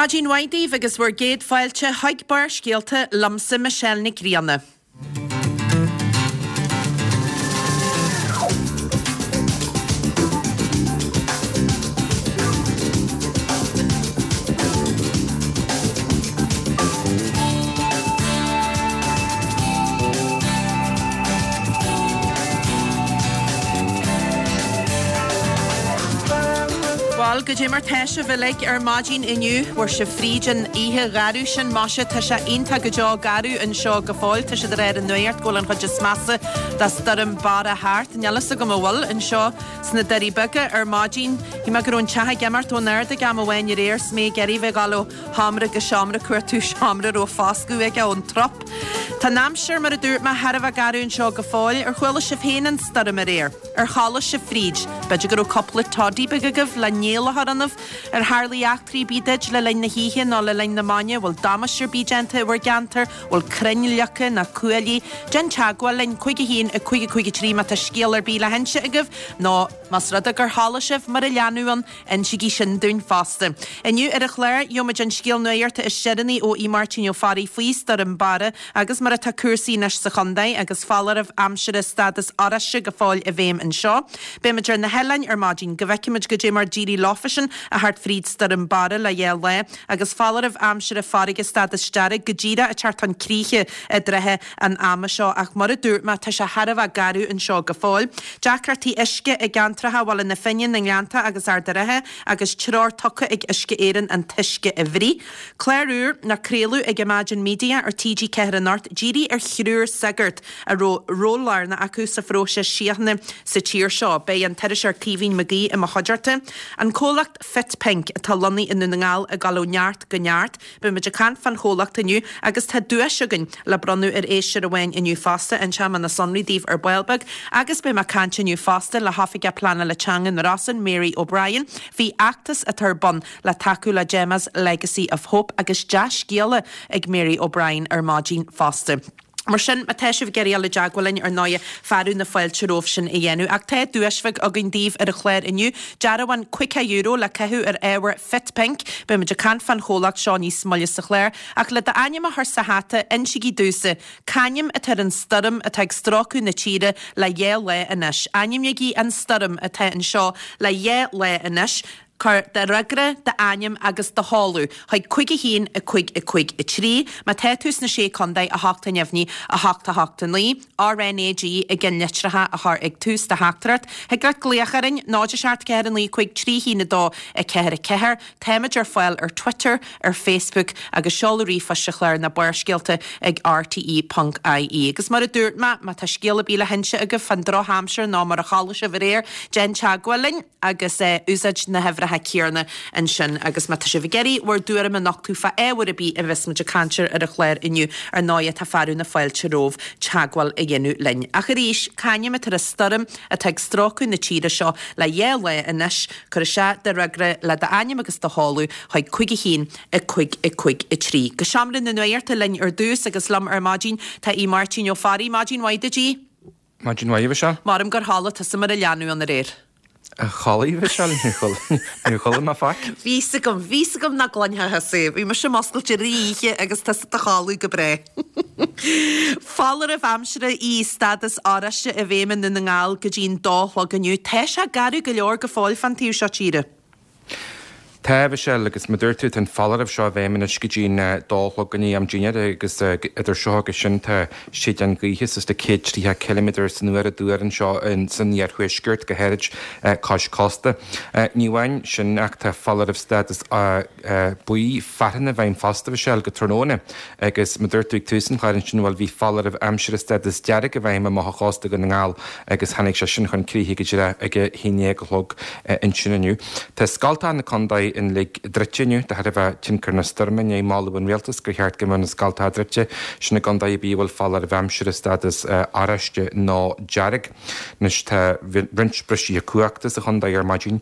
Maidin mhaith daoibh agus bhur gcéad fáilte chuig Barrscéalta liomsa Michelle Nic Grianna. Bhuel, goidé mar tá sibh uilig ar maidin inniu. Bhfuair sibh fríd an oíche gharbh sin, maise, tá sé iontach go deo garbh anseo go fóill. Tá siad ag rá ar an nuacht go bhfuil an chuid is measa de stoirm Barra thart. Níl fhios agam an bhfuil anseo sna Doirí Beaga ar maidin. Shíl mé go raibh an teach ag imeacht ón ard ag am amháin aréir 's mé ag iarraidh bheith ag dul ó sheomra go seomra ag cuartú seomra a raibh foscadh aige ón trup. Tá an aimsir, mar a dúirt mé, thar a bheith garbh anseo go fóill. Ar chuala sibh féin an stoirm aréir? Ar chodlaigh sibh fríd? B'fhéidir go raibh cúpla toddy beag agaibh le néal a chur ionaibh? Ar tharlaigh eachtraí ar bith duit le linn na hoíche nó le linn na maidne? Bhfuil damáiste ar bith déanta i bhur gceantar? Bhfuil crainn leagtha ná cuaillí? Déan teagmháil linn, 5 1 5 5 3 má tá scéal ar bith le hinse agaibh nó más rud é gur chodlaigh sibh mar a leanbh ann, Insígí sin dúinn fosta. Inniu ar an chlár, gheobhaimid an scéal nuachta is deireanaí ó Aodh Máirtín Ó Fearraigh faoi Stoirm Barra agus mar atá cúrsaí anois sa chontae agus foláireamh aimsire stádas oráiste go fóill i bhfeidhm anseo. Beimid ar na hoileáin ar maidin go bhfeicfimid goidé mar d'éirigh leofasan a theacht fríd Stoirm Barra le dhá lá agus foláireamh aimsire farraige stádas dearg go díreach ag teacht chun críche i dtrátha an ama seo ach mar a dúirt mé, tá sé thar a bheith garbh anseo go fóill. Deacrachtaí uisce i gceantracha Bhaile na Finne, na nGleannta agus Ard a' Rátha agus treoir tugtha ag Uisce Éireann an t-uisce a bhruith. Clár úr le craoladh ag Imagine Media ar TG4 anocht dírithe ar thriúr sagart a raibh ról lárnach acu sa phróiseas síochána sa tír seo. Beidh an t-iriseoir Caoimhín Mag Aoidh i mo chuideachta. An comhlacht Fit Pink atá lonnaithe i nDún na nGall ag dul ó neart go neart. Beimid ag caint fán chomhlacht inniu agus tá duais againn le bronnadh ar éisteoir amháin inniu fosta, inseoidh mé na sonraí daoibh ar ball beag agus beidh mé ag caint inniu fosta le hOifigeach Pleanála Teanga na Rosann, Mary O'Brien, faoi fheachtas atá ar bun le tacú le Gemma's Legacy of Hope agus dea-scéala ag Mary O'Brien ar maidin fosta. Mar sin, má tá sibh ag iarraidh dul i dteagmháil linn, ar ndóighe, fearadh na fáilte romhaibh sin a dhéanamh. Ach tá duais bheag againn daoibh ar an chlár inniu, dearbhán €50 le caitheamh ar ábhair Fit Pink. Beimid ag caint fán chomhlacht seo níos moille sa chlár. Ach le d'ainm a chur sa hata, insígí domhsa, c'ainm atá ar an stoirm atá ag stróiceadh na tíre le dhá lá anois? Ainmnígí an stoirm atá anseo le dhá lá anois. Cuir do fhreagra, d'ainm agus do sheoladh chuig 5 1 5 5 3. Má tá tú sna Sé Contae, 8 neamhní, 8 8 9, RnaG i gceannlitreacha a chur ag tús do theachtaireacht. Thig leat glaoch orainn, 0 7 4 9 5 3 1 2 4 4. Táimid ar fáil ar Twitter, ar Facebook agus seoladh ríomhphoist sa chlár ná Barrscéalta ag rte.ie. Agus mar a dúirt mé, má tá scéal ar bith le hinse agaibh fán drochaimsir nó mar a chodlaigh sibh aréir, déan teagmháil linn. agus úsáid na huimhreacha céanna ansin. Agus má tá sibh ag iarraidh bhur dtuairim a nochtadh fá ábhar ar bith a bheas muid ag caint air ar an chlár inniu, ar ndóighe tá fearadh na fáilte romhaibh teagmháil a dhéanamh linn. Ach arís, c'ainm atá ar an stoirm atá ag stróiceadh na tíre seo le dhá lá anois? Cuir isteach do fhreagra le d'ainm agus do sheoladh chuig 5 1 5 5 3. Go seomra na nuachta linn ar dtús agus liom ar maidin tá Aodh Máirtín Ó Fearraigh. Maidin mhaith duit, Aodh. Maidin mhaith, a Mhichelle. Maram gur chodlaigh tusa mar a leanbh ann aréir. Chodlaigh, a Mhichelle, níor chodlaigh mé faic. Bhí 'fhios agam, bhí 'fhios agam nach gcluinfeá thusa é. Bhí mise muscailte i rith oíche agus tusa i do chodladh go breá. Foláireamh aimsire í stádas oráiste i bhfeidhm i nDún na nGall go dtí'n dó a chlog inniu. Tá sé garbh go leor go fóill fán taobh seo tíre. Tá, a Mhichelle, agus mar dúirt tú, tá an foláireamh seo i bhfeidhm anois go dtí'n dó a chlog i ndiaidh am dinnéir agus idir seo agus sin tá séideán gaoithe suas le 130 ciliméadar san uair á dtuar anseo san iarthuaisceart, go háirid cois cósta. Ní amháin sin ach tá foláireamh stádas buí fearthainne i bhfeidhm fosta, a Mhichelle, go tráthnóna agus mar dúirt tú ag tús an chláir ansin, bhuel bhí foláireamh aimsire stádas dearg i bhfeidhm amach ó chósta Dhún na nGall agus tháinig sé sin chun críche go díreach ag a haon déag a chlog ansin inniu. Tá scoltacha na contae uilig druidte inniu de thairbhe tionchar na stoirme i ndiaidh moladh an rialtais gur cheart go mbeadh na scoltacha druidte sin i gcontae ar bith a bhfuil foláireamh aimsire stádas oráiste nó dearg. Anois tá roinnt bristithe cumhachta sa chontae ar maidin,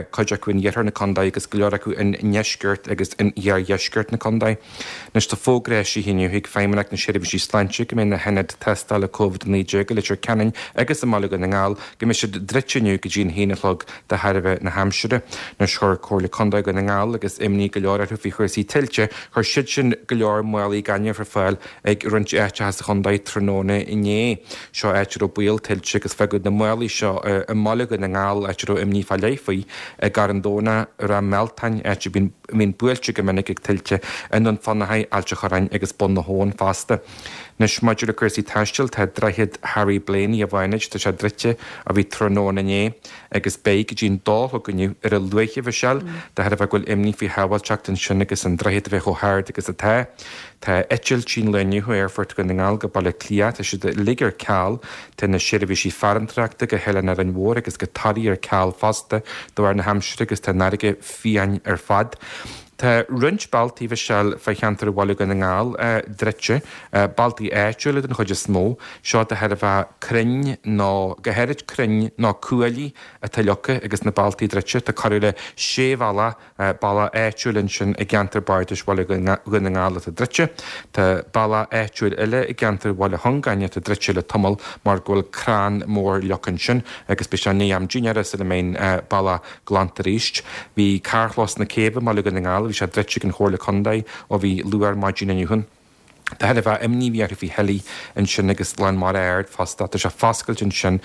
cuid acu in iarthar na contae agus go leor acu i ndeisceart agus in iardheisceart na contae. Anois tá fógra eisithe inniu ag Feidhmeannacht na Seirbhísí Sláinte go mbeidh na hionaid tástála Covid-19 i Leitir Ceanainn agus i mBaile Dhún na nGall go mbeidh siad druidte inniu go dtí an haon a chlog de thairbhe na haimsire. Anois chuir Comhairle. Contae Dhún na nGall agus imní go leor orthu faoi chúrsaí tuilte, chuir siad sin go leor málaí gainimh ar fáil ag roinnt áiteacha sa chontae tráthnóna inné. Seo áit a raibh baol tuilte agus fágadh na málaí seo i mBaile Dhún na nGall, áit a raibh imní fá leith faoi, i gCarn Domhnach, i Ráth Mealtain, áit a mbíonn buailte go minic ag tuilte, i nDún Fionnachaidh, Ailt a' Chorráin agus Bun na hAbhann fosta. Anois, maidir le cúrsaí taistil, tá Droichead Harry Blaney i bhFánaid, tá sé druidte ó bhí tráthnóna inné agus beidh go dtí an dó a chlog inniu ar a luaithe, a Mhichelle, de thairbhe go bhfuil imní faoi shábháilteacht ansin agus an droichead a bheith chomh hard agus atá. Tá eitiltí an lae inniu ó Aerfort Dhún na nGall go Baile Átha Cliath, tá siad uilig ar ceal. Tá na seirbhísí farantóireachta go hOileán Árainn Mhór agus go Toraigh ar ceal fosta de bharr na haimsire agus tá an fharraige fiáin ar fad. Tá roinnt bealtaí, a Mhichelle, fá cheantar Bhaile Dhún na nGall druidte, bealtaí áitiúla den chuid is mó, seo de thairbhe crainn nó, go háirid crainn nó cuaillí atá leagtha agus na bealtaí druidte. Tá corradh le sé bhealach, bealach áitiúil ansin i gceantar bardais Bhaile Dhún na nGall atá druidte. Tá bealach áitiúil eile i gceantar Bhaile Chongáin atá druidte le tamall mar go bhfuil crann mór leagtha ansin agus beidh sé i ndiaidh am dinnéara sula mbeidh an bealach glanta arís. Bhí carrchlós na Céibhe i mBaile Dhún na nGall, bhí sé druidte ag an Chomhairle Contae ó bhí luath ar maidin inniu. De thairbhe imní a bhí orthu faoi thuillí ansin agus lán mara ard fosta. Tá sé foscailte ansin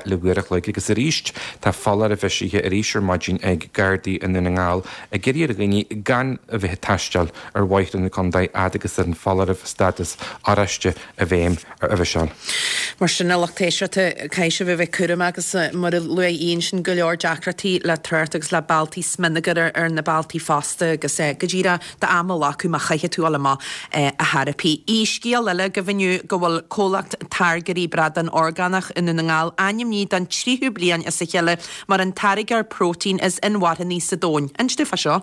le uair a chloig agus arís tá foláireamh eisithe arís ar maidin ag Gardaí i nDún na nGall ag iarraidh ar dhaoine gan a bheith ag taisteal ar bhóithre na contae fhad agus an foláireamh stádas oráiste i bhfeidhm. a Mhichelle. Mar sin, a lucht éisteachta, caithfidh sibh a bheith cúramach agus mar a luaigh Ian sin, go leor deacrachtaí le trácht agus le bealtaí, smionagar ar na bealtaí fosta agus go díreach d'am a ghlacadh má chaithfidh tú dul amach a theiripí. Aoi, scéal eile agaibh inniu go bhfuil comhlacht táirgeoirí bradán orgánach i nDún na nGall ainmnithe don tríú bliain as a chéile mar an táirgeoir próitéin is inmharthanaí sa domhan. Inis dúinn fá seo.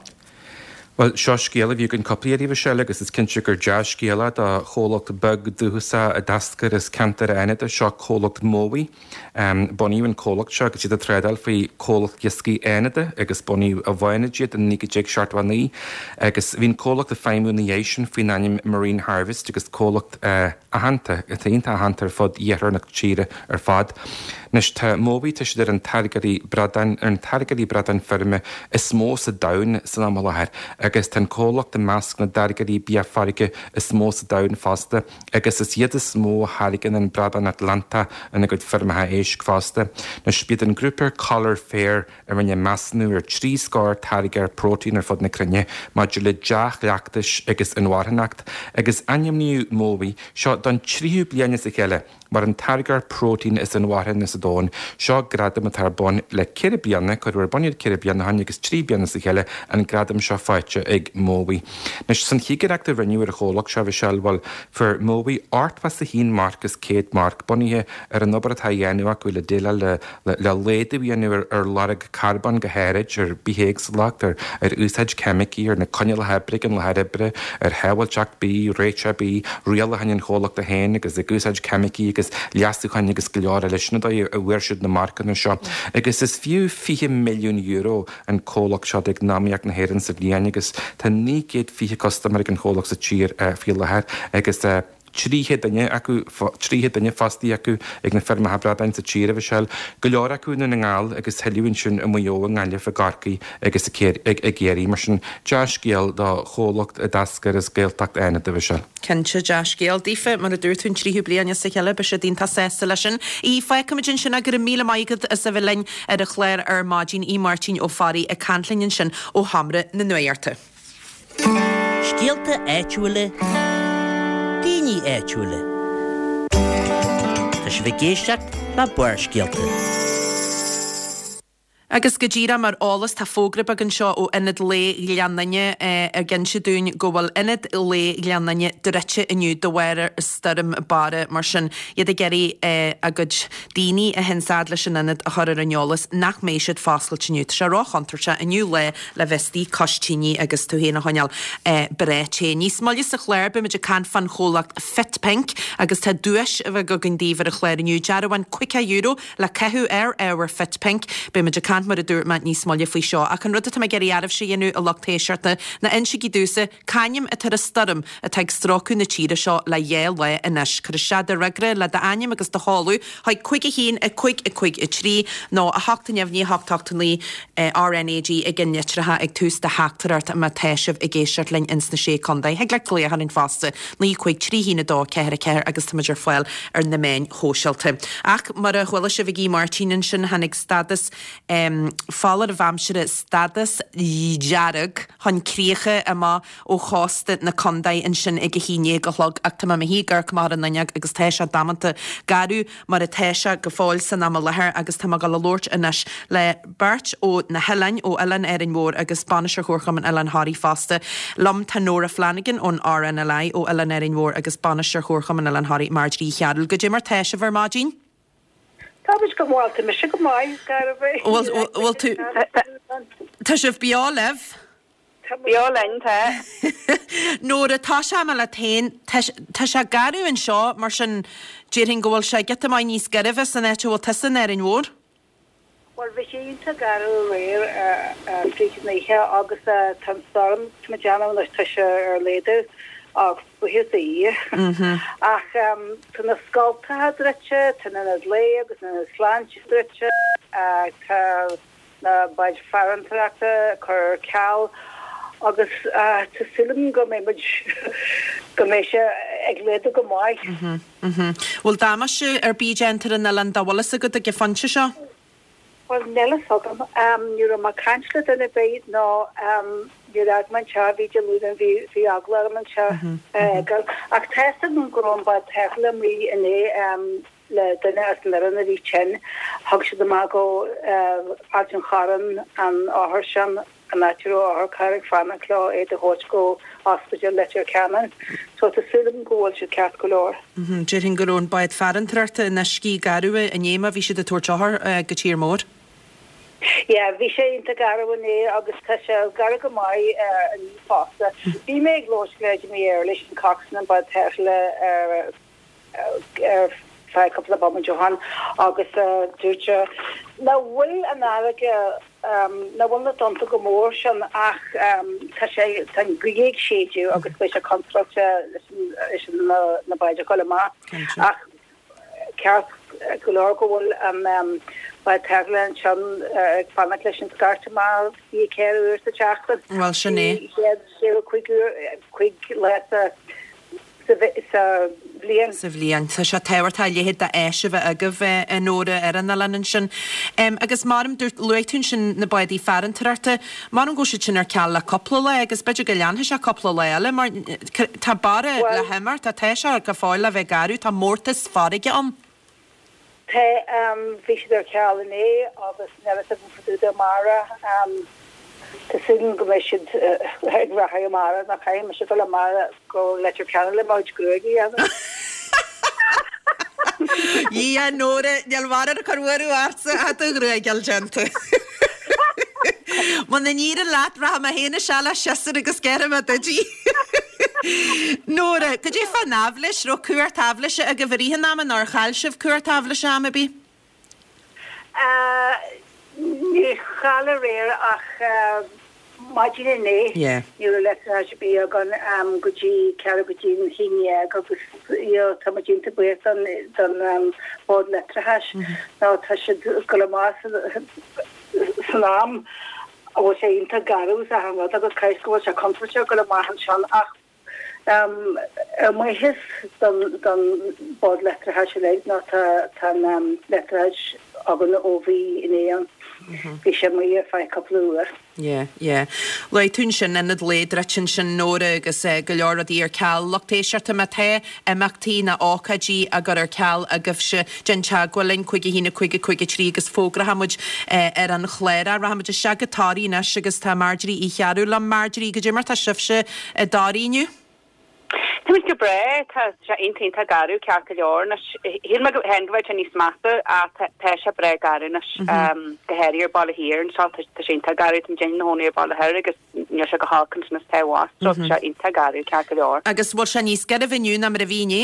Bhuel, seo scéal a bhí againn cúpla iarraidh, a Mhichelle, agus is cinnte gur dea-scéal é do chomhlacht beag dúchasach a d'eascair as ceantar Fhánada. Seo comhlacht Mowi. Bunaíodh an comhlacht seo agus iad ag trádáil faoi Comhlacht Iascaigh Fhánada agus bunaíodh i bhFánaid iad in 1979 agus bhí an comhlacht ag feidhmiú ina dhiaidh sin faoin ainm Marine Harvest agus comhlacht aitheanta, atá iontach aitheanta ar fud iarthar na tíre ar fad. Anois tá Mowi, tá siad ar an táirgeoirí bradáin, ar an táirgeoirí bradáin feirme is mó sa domhan san am i láthair agus tá an comhlacht i measc na dtáirgeoirí bia farraige is mó sa domhan fosta agus is iad is mó a tháirgeann an bradán Atlantach ina gcuid feirmeacha éisc fosta. Anois b'iad an grúpa Coller FAIRR a rinne measúnú ar thrí scór táirgeoir próitéin ar fud na cruinne maidir le dea-chleachtais agus inmharthanacht, agus ainmníodh Mowi seo don tríú bliain as a chéile mar an táirgeoir próitéin is inmharthana sa domhan. Seo gradam atá ar bun le ceithre bliana, cuireadh ar bun iad ceithre bliana ó shin agus trí bliana as a chéile an gradam seo faighte ag Mowi. Anois, san chigireacht a rinneadh ar an chomhlacht seo, a Mhichelle, bhuel, fuair Mowi 81 marc as 100 marc, bunaithe ar an obair atá á dhéanamh acu le déileáil le le laghdú a dhéanamh ar lorg carbóin go háirid, ar bithéagsúlacht, ar úsáid ceimicí, ar na coinníollacha oibre ag an láthair oibre, ar shábháilteacht bídh, réiteach bídh, rialacháin an chomhlachta féin agus ag úsáid ceimicí agus leasúcháin agus go leor eile. Sin an dóigh a bhfuair siad na marcanna seo. Agus is fiú €20 milliún an comhlacht seo d'eacnamaíocht na hÉireann sa bhliain agus tá 920 custaiméir ag an chomhlacht sa tír faoi láthair agus 300 duine acu, 300 duine fostaithe acu ag na feirmeacha bradáin sa tír, a Mhichelle. Go leor acu i nDún na nGall agus tuilleadh ansin i Maigh Eo, i nGaillimh, i gCorcaigh agus i gCiarraí. Mar sin, dea-scéal do chomhlacht a d'eascair as Gaeltacht Fhánada, a Mhichelle. Cinnte, dea-scéal daofa, mar a dúirt tú, an tríú bliain as a chéile, beidh siad iontach sásta leis sin. Aodh, fágfaimid ansin é, go raibh míle maith agat as a bheith linn ar an chlár ar maidin, Aodh Máirtín Ó Fearraigh ag caint linn ansin ó Sheomra na Nuachta. Scéalta áitiúla, daoine áitiúla. Tá sibh ag éisteacht le Barrscéalta. Agus go díreach mar eolas, tá fógra beag anseo ó Ionad Lae Ghleann Fhinne ag inse dúinn go bhfuil Ionad Lae Ghleann Fhinne druidte inniu de bharr stoirm Barra. Mar sin, iad ag iarraidh a gcuid daoine a théann fad leis an ionad a chur ar an eolas nach mbeidh siad foscailte inniu. Tá sé róchontúirteach inniu lá le bheith istigh cois tine agus tú féin a choinneáil breá te. Níos moille sa chlár beimid ag caint fán chomhlacht Fit Pink agus tá duais bheag againn daoibh ar an chlár inniu, dearbhán €50 le caitheamh ar ábhar Fit Pink. Beimid ag caint. caint, mar a dúirt mé, níos moille faoi seo. Ach an rud atá mé ag iarraidh oraibhse a dhéanamh, a lucht éisteachta, ná insigí domhsa c'ainm atá ar an stoirm atá ag stróiceadh na tíre seo le dhá lá anois. Cuir isteach do fhreagra le d'ainm agus do sheoladh chuig 5 1 5 5 3 nó 8 neamhní 8 8 9 RnaG ag an litreacha ag tús do theachtaireacht má tá sibh ag éisteacht linn ins na Sé Contae. Thig leat glaoch orainn fosta, 9 5 3 1 2 4 4 agus táimid ar fáil ar na meáin shóisialta. Ach mar a chuala sibh ag Aodh Máirtín ansin, tháinig stádas foláireamh aimsire, stádas dearg, chun críche amach ó chósta na contae ansin ag a haon déag a chlog ach tá mé i mo shuí ag amharc amach ar an fhuinneog agus tá sé damanta garbh mar atá sé go fóill san am i láthair agus tá mé ag dul a labhairt anois le beirt ó na hoileáin, ó Oileán Árainn Mhór agus Bainisteoir Chomharchumann Oileán Thoraí fosta. Liom tá Nóra Flanagan ón RNLI ó Oileán Árainn Mhór agus Bainisteoir Chomharchumann Oileán Thoraí Marjorie Uí Chearúil. Goidé mar tá sibh ar maidin? Tá muid go maith, tá mise go maith, garbh é. Bhfuil tú, tá sibh beo libh? Beo linn, tá. Nóra, tosóidh mé leat féin, tá sé garbh anseo, mar sin déarfainn go bhfuil sé giota maith níos gairbhe san áit a bhfuil tusa in Árainn Mhór. Bhuel, bhí sé iontach garbh aréir fríd an oíche agus tá an stoirm, tá mé ag déanamh anois, tá sé ar laghdú ach buíochas do Dhia. Ach tá na scoltacha druidte, tá an ionad lae agus an ionad sláinte druidte, tá na báid farantóireachta curtha ar ceal agus tá súil agam go mbeidh muid, go mbeidh sé ag laghdú go maith. Bhfuil damáiste ar bith déanta ar an oileán dá bhfuil fhios agat ag an phointe seo? Bhuel, níl fhios agam. Ní raibh mé ag caint le duine ar bith nó níor fhág mé an teach, bhí Dé Luain, bhí bhí eagla orm an teach a fhágáil. Ach tá fhios agam go raibh an bád tarrthála amuigh inné le duine as an fhoireann a bhí tinn. Thug siad amach go Ailt an Chorráin an othar sin. an áit a raibh otharcharr ag fanacht leo iad a thabhairt go Ospidéal Leitir Ceanainn. So tá súil agam go bhfuil siad ceart go leor. Déarfainn go raibh an bád farantóireachta in uiscí garbh inné má bhí siad ag tabhairt othar go tír mór. Yeah, bhí sé iontach garbh inné agus tá sé garbh go maith inniu fosta. Bhí mé ag labhairt le Jimmy Early, sin coxswain an bád tarrthála ar ar feadh cúpla bomaite ó shin agus dúirt sé nach bhfuil an fharraige, nach bhfuil na tonnta chomh mór sin ach tá sé, tá an ghaoth ag séideadh agus beidh sé contúirteach leis na báid a dhul amach ach ceart go leor go bhfuil an bád tarrthála ansin ag fanacht leis an scairt amach 24 uair sa tseachtain. Bhuel sin é. 365 uair, 5 lá sa sa bhliain. sa bhliain. Tá sé tábhachtach a leithéid d'áis a bheith agaibh, a Nóra, ar an oileán ansin. Agus maram, dúirt, luaigh tú ansin na bádaí farantóireachta, maram go bhfuil siad sin ar ceal le cúpla lá agus b'fhéidir go leanfaidh sé cúpla lá eile mar tá Barra le himeacht, tá sé go fóill le bheith garbh, tá mórtas farraige ann. Tá, bhí siad ar ceal inné agus níl a fhios agam fá dtaobh de amárach. Tá súil agam go mbeidh siad ag rachadh amárach nó caithfidh mise dul amárach go Leitir Ceanainn le mo chuid gruaige a dhéanamh. Dhia, Nóra, níl mórán ag cur buaireamh ortsa ach do ghruaig a fháil déanta. Muna n-éiríonn leat, rachaidh mé féin isteach le siosúr agus gearrfaidh mé duit í. Nóra, cad é fán aibhléis? Raibh cuairt aibhléise agaibh i rith an ama nó ar chaill sibh cuairt aibhléise am ar bith? Níor chaill aréir ach maidin inné ní raibh leictreachas ar bith againn go dtí ceathrú go dtí an haon dhéag agus tá muid iontach buíoch don Bhord Leictreachais nó tá siad ag dul amach san am a bhfuil sé iontach garbh is achan rud agus caithfidh go bhfuil sé contúirteach dul amach ansin ach ar mhaitheas don Bhord Leictreachais uilig nó tá an leictreachas againn ó bhí inné ann. Bhí sé amuigh ar feadh cúpla uair. Yeah, yeah. Luaigh tú ansin ionad lae druidte ansin Nóra agus go leor rudaí ar ceal. Lucht éisteachta má tá imeachtaí nó ócáidí á gcur ar ceal agaibhse, déan teagmháil linn, 5 1 5 5 3 agus fógróidh muid ar an chlár é. Rachaidh muid isteach go Toraigh anois agus tá Marjorie Uí Chearúil liom. Marjorie, goidé mar tá sibhse i dToraigh inniu? Tá muid go breá, tá sé iontach iontach garbh ceart go leor anois. Shíl mé féin go bheadh sé níos measa ach tá sé breá garbh anois, go háirithe ar Baile Thiar anseo, tá sé iontach garbh, tá muid inár gcónaí ar Baile Thoir agus níl sé chomh holc ansin is atá abhus, so tá sé iontach garbh ceart go leor. Agus bhfuil sé níos gairbhe inniu ná mar a bhí inné?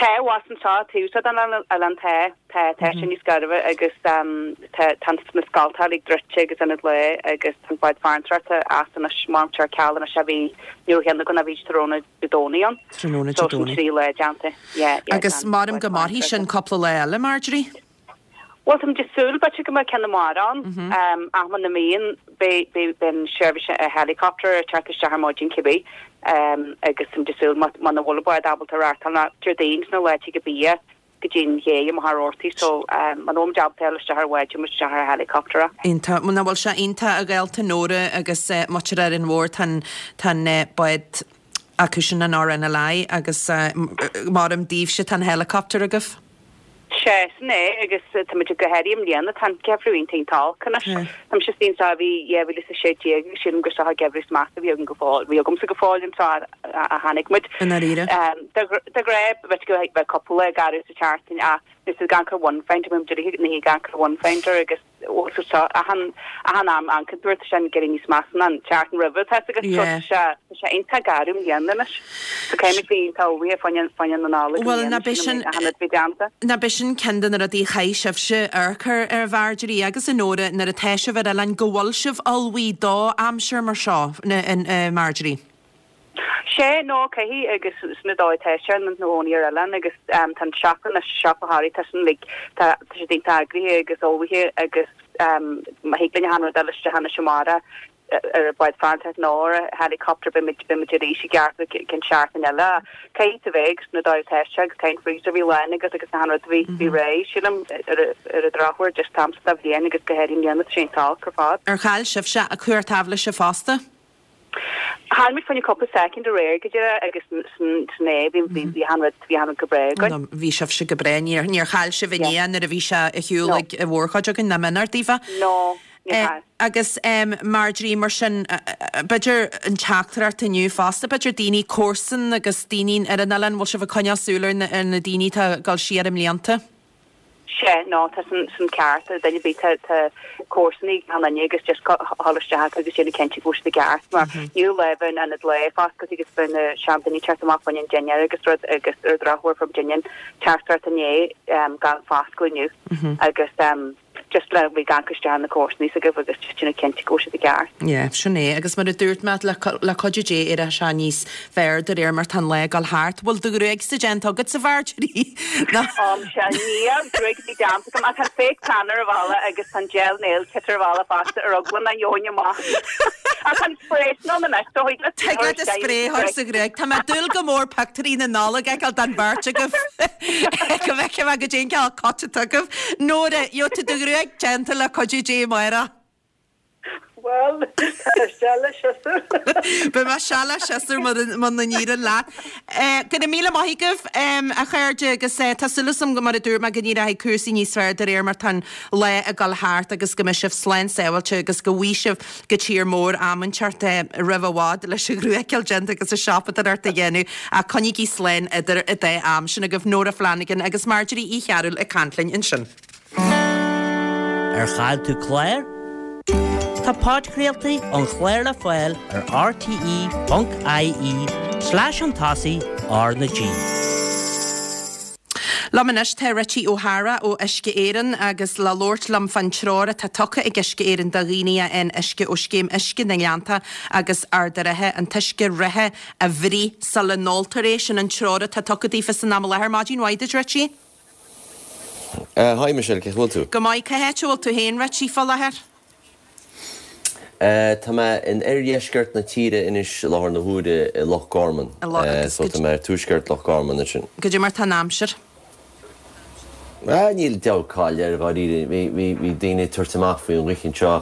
Tá abhus anseo, taobh seo den oileán tá, tá, tá sé níos gairbhe agus tá, tá na scoltacha uilig druidte agus ionad lae agus tá an bád farantóireachta as anois, maram ar ceal anois a bhí, ní raibh cheann againn a bhí tráthnóna Dé Domhnaigh ann. Tráthnóna Dé So sin Domhnaigh. 3 lá déanta, yeah, yeah, Agus gan maram bád go mairfidh sin farantóireachta. cúpla lá eile, Marjorie? Bhuel, táimid ag súil, b'fhéidir go mbeidh ceann amárach ann, ach muna mbíonn, beidh, beidh, beidh an seirbhís helicopter ag teacht isteach ar maidin cibé, agus táimid ag súil má, muna bhfuil an bád ábalta reáchtáil ná Déardaoin sna laethe go bia go dtí an ché i Machaire Rabhartaigh, so muna bhfuil muid ábalta dul isteach ar bhád, gheobhaidh muid isteach ar helicopter. Iontach. Nach bhfuil sé iontach a ghaolta Nóra agus muintir Árainn Mhór, tá an, tá an bád acu sin an RNLI agus maram daoibhse tá an helicopter agaibh. Sea, sin é, agus táimid go háirithe i mbliana, tá an geimhreadh iontach iontach olc anois. Tá mise istigh anseo ó bhí 2016 agus sílim gur seo an geimhreadh is measa a bhí againn go fóill, bhí agamsa go fóill anseo ó tháinig muid. I ndáiríre. De ghnáth, bheadh go bheadh cúpla lá garbh sa tseachtain ach nuair is ag amharc ar One Finder, bíonn muid uilig ag amharc ar One Finder agus bhfuil tú seo achan achan am amharcann tú air tá sé ag éirí níos measa ná an tseachtain roimhe tá fhios agat so Yeah. tá sé tá sé iontach garbh i mbliana anois. So caithfidh muid bheith iontach ullmhaithe fá choinne fá choinne na Nollag i Bhuel mbliana ná b'é sin sin achan rud bhí déanta. ná b'é sin ceann de na rudaí a chaithfidh sibhse amharc air a Mharjorie agus a Nóra nuair atá sibh ar oileán go bhfuil sibh ullmhaithe do aimsir mar seo a Marjorie. Sea, no, caithfidh, agus sin an dóigh atá sé ina gcónaí ar oileán agus tá an siopa anois, siopa Thoraí, tá sin like, tá tá siad iontach eagraithe agus ullmhaithe agus má thig linn achan rud a fháil isteach anois amárach ar an bád farantóireachta nó ar an helicopter beidh muid, beidh muid arís i gceart go ceann seachtain eile. Caithfidh tú bheith agus sin an dóigh atá sé agus caithfidh an freezer a bheith lán agus agus achan rud a bheith, bheith réidh, sílim, ar ar an drochuair just an t-am seo de bhliain agus go háirithe i mbliana tá sé iontach olc ar fad. Ar chaill sibhse cumhacht aibhléise fosta? Chaill muid fá choinne cúpla soicind aréir go díreach agus sin é, bhí bhí achan rud, bhí achan rud go breá againn. No, bhí sibhse go breá, níor, níor chaill sibh Yeah. inné nuair a bhí sé ar shiúl No. ag an mhórchuid againn, nach mb'in ort daofa? No, níor chaill. Agus Marjorie, mar sin, b'fhéidir an teachtaireacht inniu fosta, b'fhéidir daoine comharsan agus daoine ar an oileán, bhfuil sibh ag coinneáil súil ar na, ar na daoine atá ag dul siar i mblianta? Sea, no, tá sin, sin ceart. Duine ar bith, tá, tá comharsanaí ag achan duine agus just dhul isteach acu agus déanamh cinnte go bhfuil siad i gceart mar níl lá bheith in ionad lae foscailte agus bheith na seandaoine ag teacht amach fá choinne an dinnéar agus rud agus ar an drochuair fuair muidinne an teachtaireacht inné gan foscladh inniu agus just le bheith ag amharc isteach ar na comharsanaí s'agaibh agus just déanamh cinnte go bhfuil siad i gceart. Yeah, sin é. Agus mar a dúirt mé, le, le cuidiú Dé, éireoidh sé níos fearr de réir mar tá an lá ag dul thart. Bhfuil do ghruaigse déanta agatsa, a Mharjorie? Nó. Ó, sea, níl gruaig ar bith déanta agam ach tá an fake tan ar an bhalla agus tá an gel nail kit ar an bhalla fosta ar eagla nach ngeobhainn amach. Ach tá an spray sin ann anois, so thig leat Thig leat an spray a chur sa ghruaig. Tá mé ag dúil go mór pictiúirí na Nollag a fheiceáil den bheirt agaibh. Go bhfeicfidh mé goidé an cineál coat atá agaibh. Nóra, gheobhaidh tú do ghruaig déanta le cuidiú Dé amárach. Bhuel, tá seal le siosúr. Beidh mé seal le siosúr muna n-éiríonn leat. Go raibh míle maith agaibh, a chairde, agus tá súil agam, mar a dúirt mé, go n-éireoidh cúrsaí níos fearr de réir mar tá an lá ag dul thart agus go mbeidh sibh slán sábháilte agus go bhfaighidh sibh go tír mór am inteacht roimh i bhfad leis an ghruaig a fháil déanta agus an siopadóireacht a dhéanamh ach coinnígí slán idir an dá am sin agaibh Nóra Flanagan agus Marjorie Uí Chearúil ag caint linn ansin. Ar chaill tú clár? Tá podchraoltaí an chláir le fáil ar rte.ie slash chun tosaigh R na G. Liom anois tá Richie O'Hara ó Uisce Éireann agus le labhairt liom fán treoir atá tugtha ag Uisce Éireann do dhaoine a fhaigheann uisce ó Scéim Uisce na nGleannta agus Ard an Rátha, an t-uisce reatha a bhruith sula n-óltar é. Sin an treoir atá tugtha daofa san am i láthair. Maidin mhaith duit, Richie. Hi Michelle, cén chaoi a bhfuil tú? Go maith. Cá háit a bhfuil tú féin, Richie, fá láthair? Tá mé in oirdheisceart na tíre anois i láthair na huaire i Loch Garman. So tá mé ar tuaisceart Loch Garman ansin. Goidé mar tá an aimsir? Níl diabhal caill air dháiríre. Bhí daoine ag tabhairt amach faoin ghaoth anseo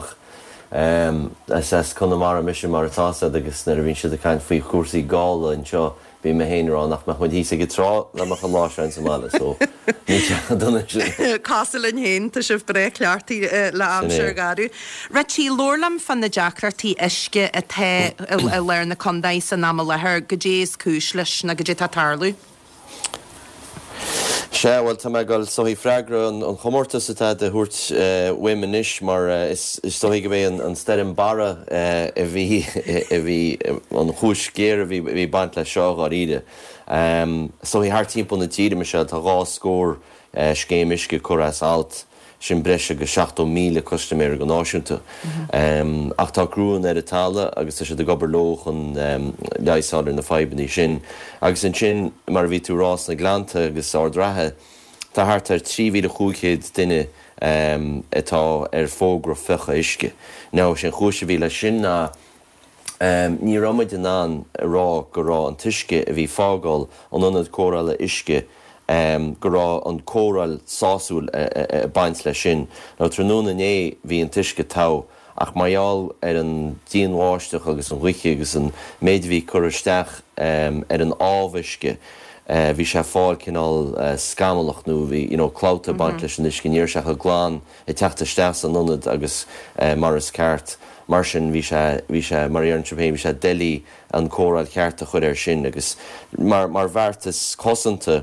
ach is as Conamara mise mar atá 'fhios a'd agus nuair a bhíonn siad ag caint faoi chúrsaí gála anseo Bhí mé féin ag rá nach mbeadh muid thíos ag an trá dá mbeadh an lá seo ins an mbaile so níl sé chomh dona sin. Cosúil linn féin, tá sibh breá cleachtaithe le aimsir gharbh. Richie, labhair liom fá na deacrachtaí uisce atá i lár na contae san am i láthair, goidé is cúis leis nó goidé atá ag tarlú? Sea, bhuel, tá mé ag dul is dóichí freagra an chomórtais atá tú a thabhairt uaim anois mar is dóichí go b'é an stoirm Barra a bhí, a bhí, an chúis ghéar a bhí ag baint leis seo, dháiríre. Is dóichí thart timpeall na tíre, Michelle, tá dhá scór scéim uisce curtha as alt. Sin breis agus 70,000 custaiméir go náisiúnta. Ach tá criúnna ar an talamh agus tá siad ag obair leo chun leigheas a fháil ar na fadhbanna sin. Agus ansin, mar a bhí tú a rá, sna Gleannta agus Ard Ratha, tá thart ar 3,500 duine atá ar fógra fiuchadh uisce. Now, sé an chúis a bhí leis sin ná, Ní raibh muid in ann a rá go raibh an t-uisce a bhí fágáil an ionad cóireála uisce, go raibh an cóireáil sásúil ag baint leis sin. Now tráthnóna inné bhí an t-uisce togha ach mar gheall ar an dian-bháisteach agus an ghaoth agus an méid a bhí curtha isteach ar an amhuisce, bhí sé ag fáil cineál scamallach nó bhí you know clabhta ag baint leis an uisce, ní raibh sé chomh glan. ag teacht isteach san ionad agus mar is ceart. Mar sin, bhí sé, bhí sé, mar a deireann sibh féin, bhí sé doiligh an cóireáil cheart a chur air sin agus mar, mar bheartas cosanta,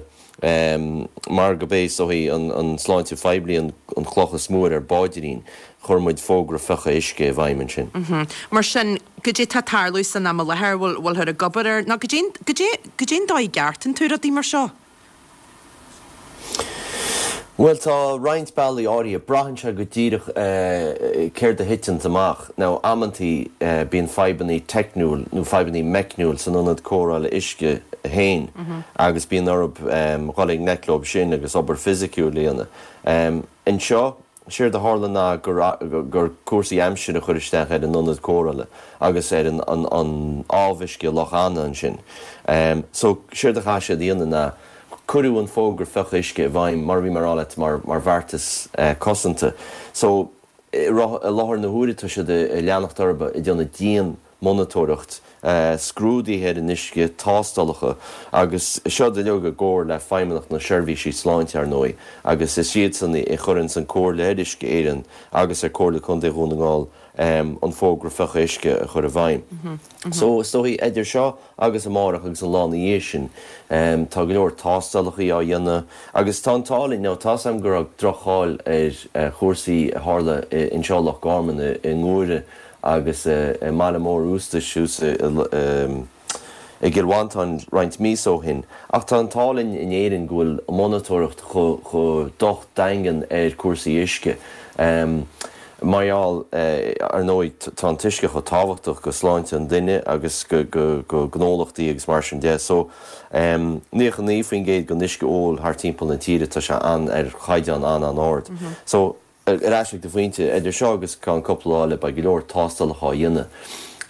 mar go b'é is dóichí an, an sláinte phoiblí an, an chloch is mó ar ár bpaidrín, chuir muid fógra fiuchadh uisce i bhfeidhm ansin. Mar sin, goidé tá ag tarlú san am i láthair, bhfuil, bhfuilthear ag obair air, nó goidé, goidé, goidé an dóigh a gceartaíonn tú rudaí mar seo? Bhuel, tá roinnt bealaí áirithe. Braitheann sé go díreach céard a thiteanns amach. Now, amantaí bíonn fadhbannaí teicniúil nó fadhbannaí meicniúil san ionad cóireála uisce féin agus bíonn orthu dhul i ngleic leo sin agus obair fisiciúil a dhéanamh. Anseo, Séard a tharla ná gur cúrsaí aimsire a chuir isteach ar an ionad cóireála agus ar an amhuisce i Loch Anna ansin. So, séard a chaith siad a dhéanamh ná cuireadh an fógra fiuchadh uisce i bhfeidhm, mar a bhí mé a rá leat, mar bheartas cosanta. So, i láthair na huaire tá siad ag leanacht orthu ag déanamh dian monatóireacht, scrúduithe ar an uisce, tástálacha, agus seo uilig i gcomhar le Feidhmeannacht na Seirbhísí Sláinte, ar ndóigh, agus is iadsan a chuireanns an comhairle ar Uisce Éireann agus ar Comhairle Contae Dhún na nGall an fógra fiuchadh uisce a chur i bhfeidhm. So, is dóichí, idir seo agus amárach agus an lá ina dhiaidh sin, tá go leor tástálacha á dhéanamh agus tá an t-ádh linn, now tá's agam go raibh droch-cháil ar chúrsaí a tharla anseo i Loch Garman, i nGuaire, agus i mBaile Móir Iústais thuas i gCill Mhantáin roinnt míosa ó shin. Ach tá an t-ádh linn in Éirinn go bhfuil monatóireacht chomh docht daingean ar cúrsaí uisce. Mar gheall, ar ndóigh, tá an t-uisce chomh tábhachtach go sláinte an duine agus go gnólachtaí agus mar sin de. So, 99% den uisce óil thart timpeall na tíre, tá sé an ar chaighdeán an-an-ard. So, Ar ais ag do phointe, idir seo agus ceann cúpla lá eile beidh go leor tástálacha á dhéanamh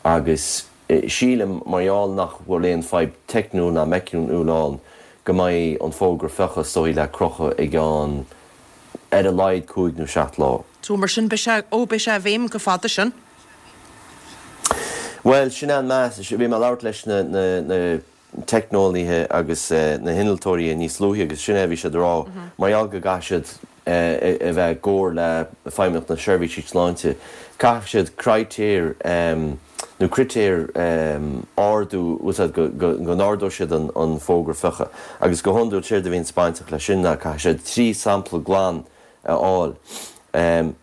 agus sílim, mar gheall nach bhfuil aon fadhb teicniúil ná meicniúil ann, go mbeidh an fógra fiuchadh is dóichí le crochadh i gceann ar a laghad cúig nó seacht lá. So mar sin beidh sé, ó beidh sé i bhfeidhm go fada sin. Bhuel, sin é an meas. Bhí mé ag labhairt leis na, na, na. teicneolaithe agus na hinnealtóirí níos luaithe agus sin é a bhí siad a rá, mar gheall go gcaithfidh siad a bheith i gcomhar le Feidhmeannacht na Seirbhísí Sláinte, caithfidh siad critéir nó critéir ardú, úsáid go n-ardóidh siad an fógra fiuchadh. Agus go hiondúil séard a bhíonns bainteach leis sin ná caithfidh siad 3 sampla glan a fháil.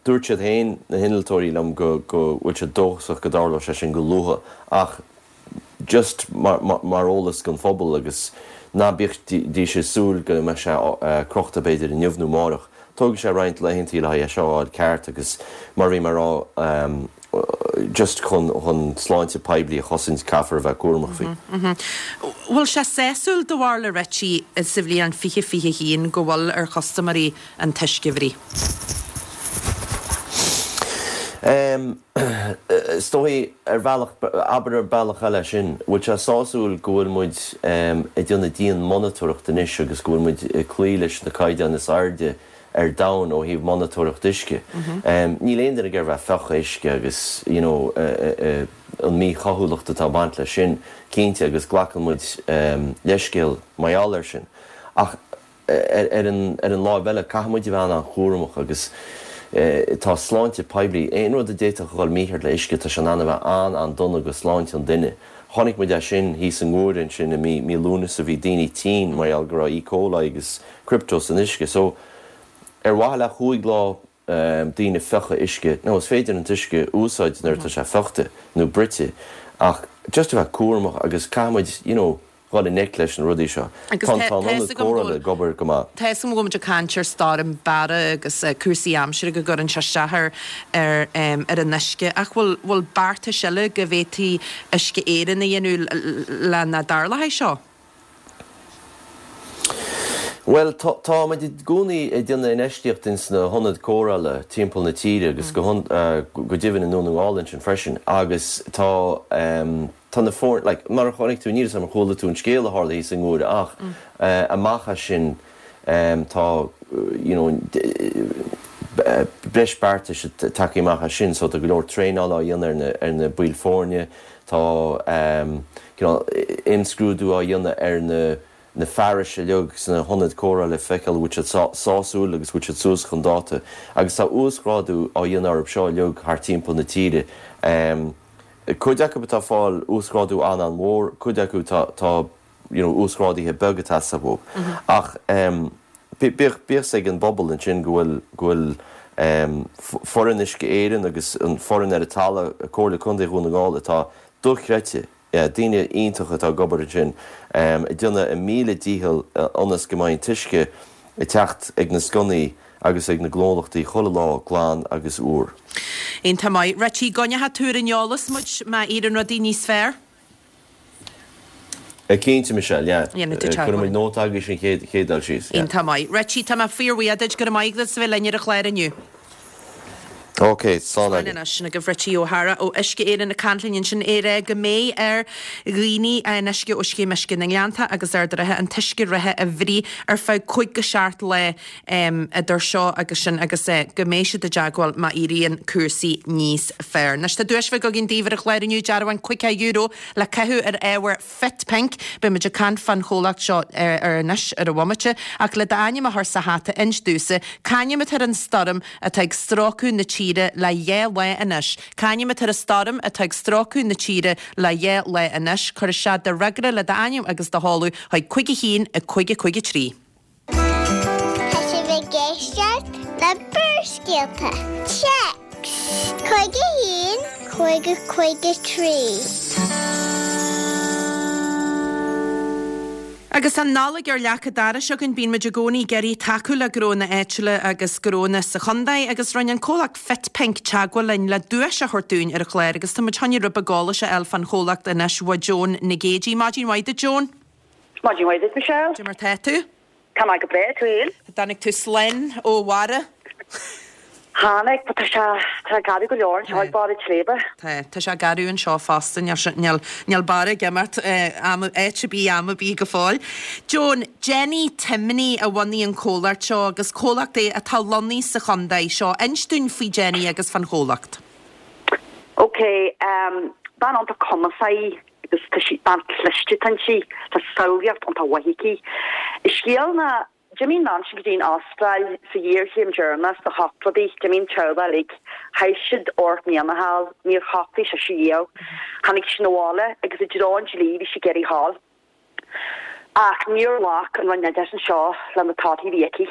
Dúirt siad féin, na hinnealtóirí liom, go bhfuil siad dóchasach go dtarlóidh sé sin go luath ach, just mar eolas don phobal agus ná bídís ag súil go mbeidh sé crochta b'fhéidir inniu nó amárach. Tógfaidh sé roinnt laethantaí le haghaidh é seo a fháil ceart agus mar a bhí mé a rá just chun chun sláinte poiblí a chosaint caithfear a bheith cúramach faoi. Bhfuil sé sásúil do bharúil a Richie sa bhliain 2021 go bhfuil ar chustaiméirí an t-uisce a bhruith? Is dóichí, ar bhealach, abair ar bealach eile sin, bhfuil sé sásúil go bhfuil muid ag déanamh dian-monatóireacht anois agus go bhfuil muid ag cloí leis na caighdeáin is airde ar domhan ó thaobh monatóireacht uisce. Níl aon duine ag iarraidh bheith ag fiuchadh uisce agus you know an mhíchaoithiúlacht atá ag baint leis sin, cinnte, agus glacann muid leithscéal mar gheall air sin. Ach. Ar an láimh eile, caithfidh muid a bheith an-an-chúramach agus tá sláinte poiblí, aon rud a d'fhéadfadh a dhul mícheart le uisce, tá sé in ann a bheith an-an-dona go sláinte an duine. Chonaic muid é sin thíos i nGuaire ansin i mí mí Lúnasa, bhí daoine tinn mar gheall go raibh E. coli agus crypto san uisce. So, ar mhaithe le chúig lá daoine fiuchadh uisce, now is féidir an t-uisce a úsáid nuair atá sé fiuchta nó bruite ach just a bheith cúramach agus caithfidh muid, you know, dhul i ngleic leis na rudaí seo. Agus Tá tá an fhios ionad agam go cóireála bhfuil ag obair go maith. Tá fhios agam go bhfuil muid ag caint ar stoirm Barra agus cúrsaí aimsire go gcuireann sé isteach ar ar ar an uisce ach bhfuil bhfuil beartais eile go bhféadfaidh Uisce Éireann a dhéanamh le nach dtarlóidh seo? Bhuel, tá tá muid i gcónaí ag déanamh infheistíocht ins na hionaid cóireála timpeall na tíre agus go go deimhin i nDún na nGall ansin freisin agus tá Tá na foirne, like, mar a chonaic tú, níl 'fhios a'm ar chuala tú an scéal a tharla thíos i nGuaire ach amach as sin tá, you know, breis beartais tagtha amach as sin so tá go leor traenála á dhéanamh ar na, ar na baill foirne, tá cineál imscrúdú á dhéanamh ar na, na fearais uilig sna hionaid cóireála le feiceáil an bhfuil siad sásúil agus bhfuil siad suas chun dáta agus tá uasghrádú á dhéanamh orthu seo uilig thart timpeall na tíre. Cuid acu atá ag fáil uasghrádú an-an-mhór, cuid acu tá tá you know uasghráduithe beaga ag teastáil uathu. Ach bíodh bíodh 'fhios ag an bpobal ansin go bhfuil go bhfuil foireann Uisce Éireann agus an foireann ar an talamh, Comhairle Contae Dhún na nGall atá dochreidte, yeah daoine iontacha atá ag obair ansin ag déanamh a míle dícheall ionas go mbeidh an t-uisce ag teacht ag na sconnaí agus ag na gnólachtaí chuile lá glan agus úr. Iontach maith. Richie, coinneoidh tú ar an eolas muid má éiríonn rudaí níos fearr? Cinnte, Michelle, yeah. Dhéanfaidh tú Cuirfidh muid teagmháil. nóta agaibh an chéad chéad dul síos, yeah. Iontach maith. Richie, tá mé fíorbhuíoch duit. Go raibh maith agat as a bheith linn ar an chlár inniu. Ok, slán Slán agaibh. anois. Sin agaibh Richie O'Hara ó Uisce Éireann ag caint linn ansin é rá go mbeidh ar dhaoine a fhaigheann uisce ó Scéim Uisce na nGleannta agus Ard an Rátha an t-uisce reatha a bhruith ar feadh cúig go seacht lá idir seo agus sin agus go mbeidh siad i dteagmháil má éiríonn cúrsaí níos fearr. Anois tá duais bheag againn daoibh ar an chlár inniu, dearbhán €50 le caitheamh ar ábhar Fit Pink. Beidh muid ag caint fán chomhlacht seo ar anois ar an bhomaite, ach le d'ainm a chur sa hata inis domhsa, c'ainm atá ar an stoirm atá ag stróiceadh na tíre le dhá lá anois? C'ainm atá ar an stoirm atá ag stróiceadh na tíre le dhá lá anois? Cuir isteach do fhreagra le d'ainm agus do sheoladh chuig 5 1 5 5 3. Tá sibh ag éisteacht le Barrscéalta. Téacs 51 5 5 3. Agus an Nollaig ar leac an dorais againn, bíonn muid i gcónaí ag iarraidh tacú le gnónna áitiúla agus gnónna sa chontae agus rinne an comhlacht Fit Pink teagmháil linn le duais a thabhairt dúinn ar an chlár agus tá muid chun rud beag eolais a fháil fán chomhlacht anois uaidh Joan Nic Géidigh. Maidin mhaith duit Joan. Maidin mhaith duit, Michelle. Cad é mar tá tú? Tá mé go breá, tú fhéin? Dtáinig tú slán ó Bharra? Tháinig, but tá sé, tá sé garbh go leor anseo ag barr an tsléibhe. Tá, tá sé garbh anseo fosta, níl sé, níl, níl Barra ag imeacht am, áit ar bith, am ar bith go fóill. Joan, Jenny Timony a bhunaigh an comhlacht seo agus comhlacht é atá lonnaithe sa chontae seo. Inis dúinn faoi Jenny agus fán chomhlacht. Ok, bean iontach cumasach í agus tá sí, bean cliste atá inti, tá samhlaíocht iontach mhaith aici. An scéal ná, d'imigh an bhean sin go dtí an Astráil sa ghéarchéim deireanach sna hochtóidí, d'imigh an teaghlach uilig, chaith siad ocht mbliana thall, níor shocraigh sise riamh. Tháinig sí 'na bhaile agus i dtreo an dlí bhí sí ag iarraidh a ghabháil. Ach níor ghlac an Roinn Oideachais anseo le na torthaí a bhí aici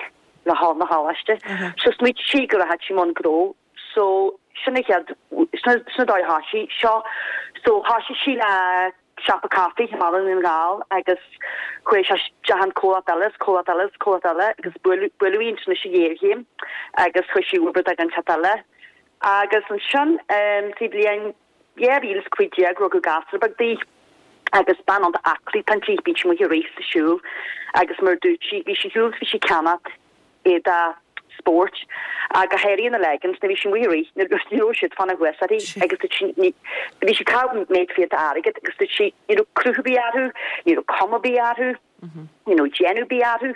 le dhul 'na choláiste. So smaoitigh sí go rachadh sí i mbun gnó. So, sin an chéad, sin an dóigh a thoisigh seo. So, thoisigh sí le siopa caife i mBaile Dhún na nGall agus chuaigh sé isteach in comhlacht eile is comhlacht eile is comhlacht eile agus buaileadh, buaileadh í ansin leis an ghéarchéim agus chuaigh sí ag obair do dhuine eile. Agus ansin, sa bhliain 2015 rugadh gasúr beag di agus bean iontach aclaí atá inti, bíonn sí amuigh ag rith is ag siúl agus mar a dúirt sí, bhí sí ag siúl is bhí sí ag ceannacht éadaí spóirt, ach go háirithe na leggings, nuair a bhí sí amuigh ag rith, ní raibh siad fanacht thuas uirthi agus dúirt sí, ní, bhí sí ag caitheamh méid fiata airgid agus dúirt sí, ní raibh cruth ar bith orthu, ní raibh cuma ar bith orthu, ní raibh déanamh ar bith orthu.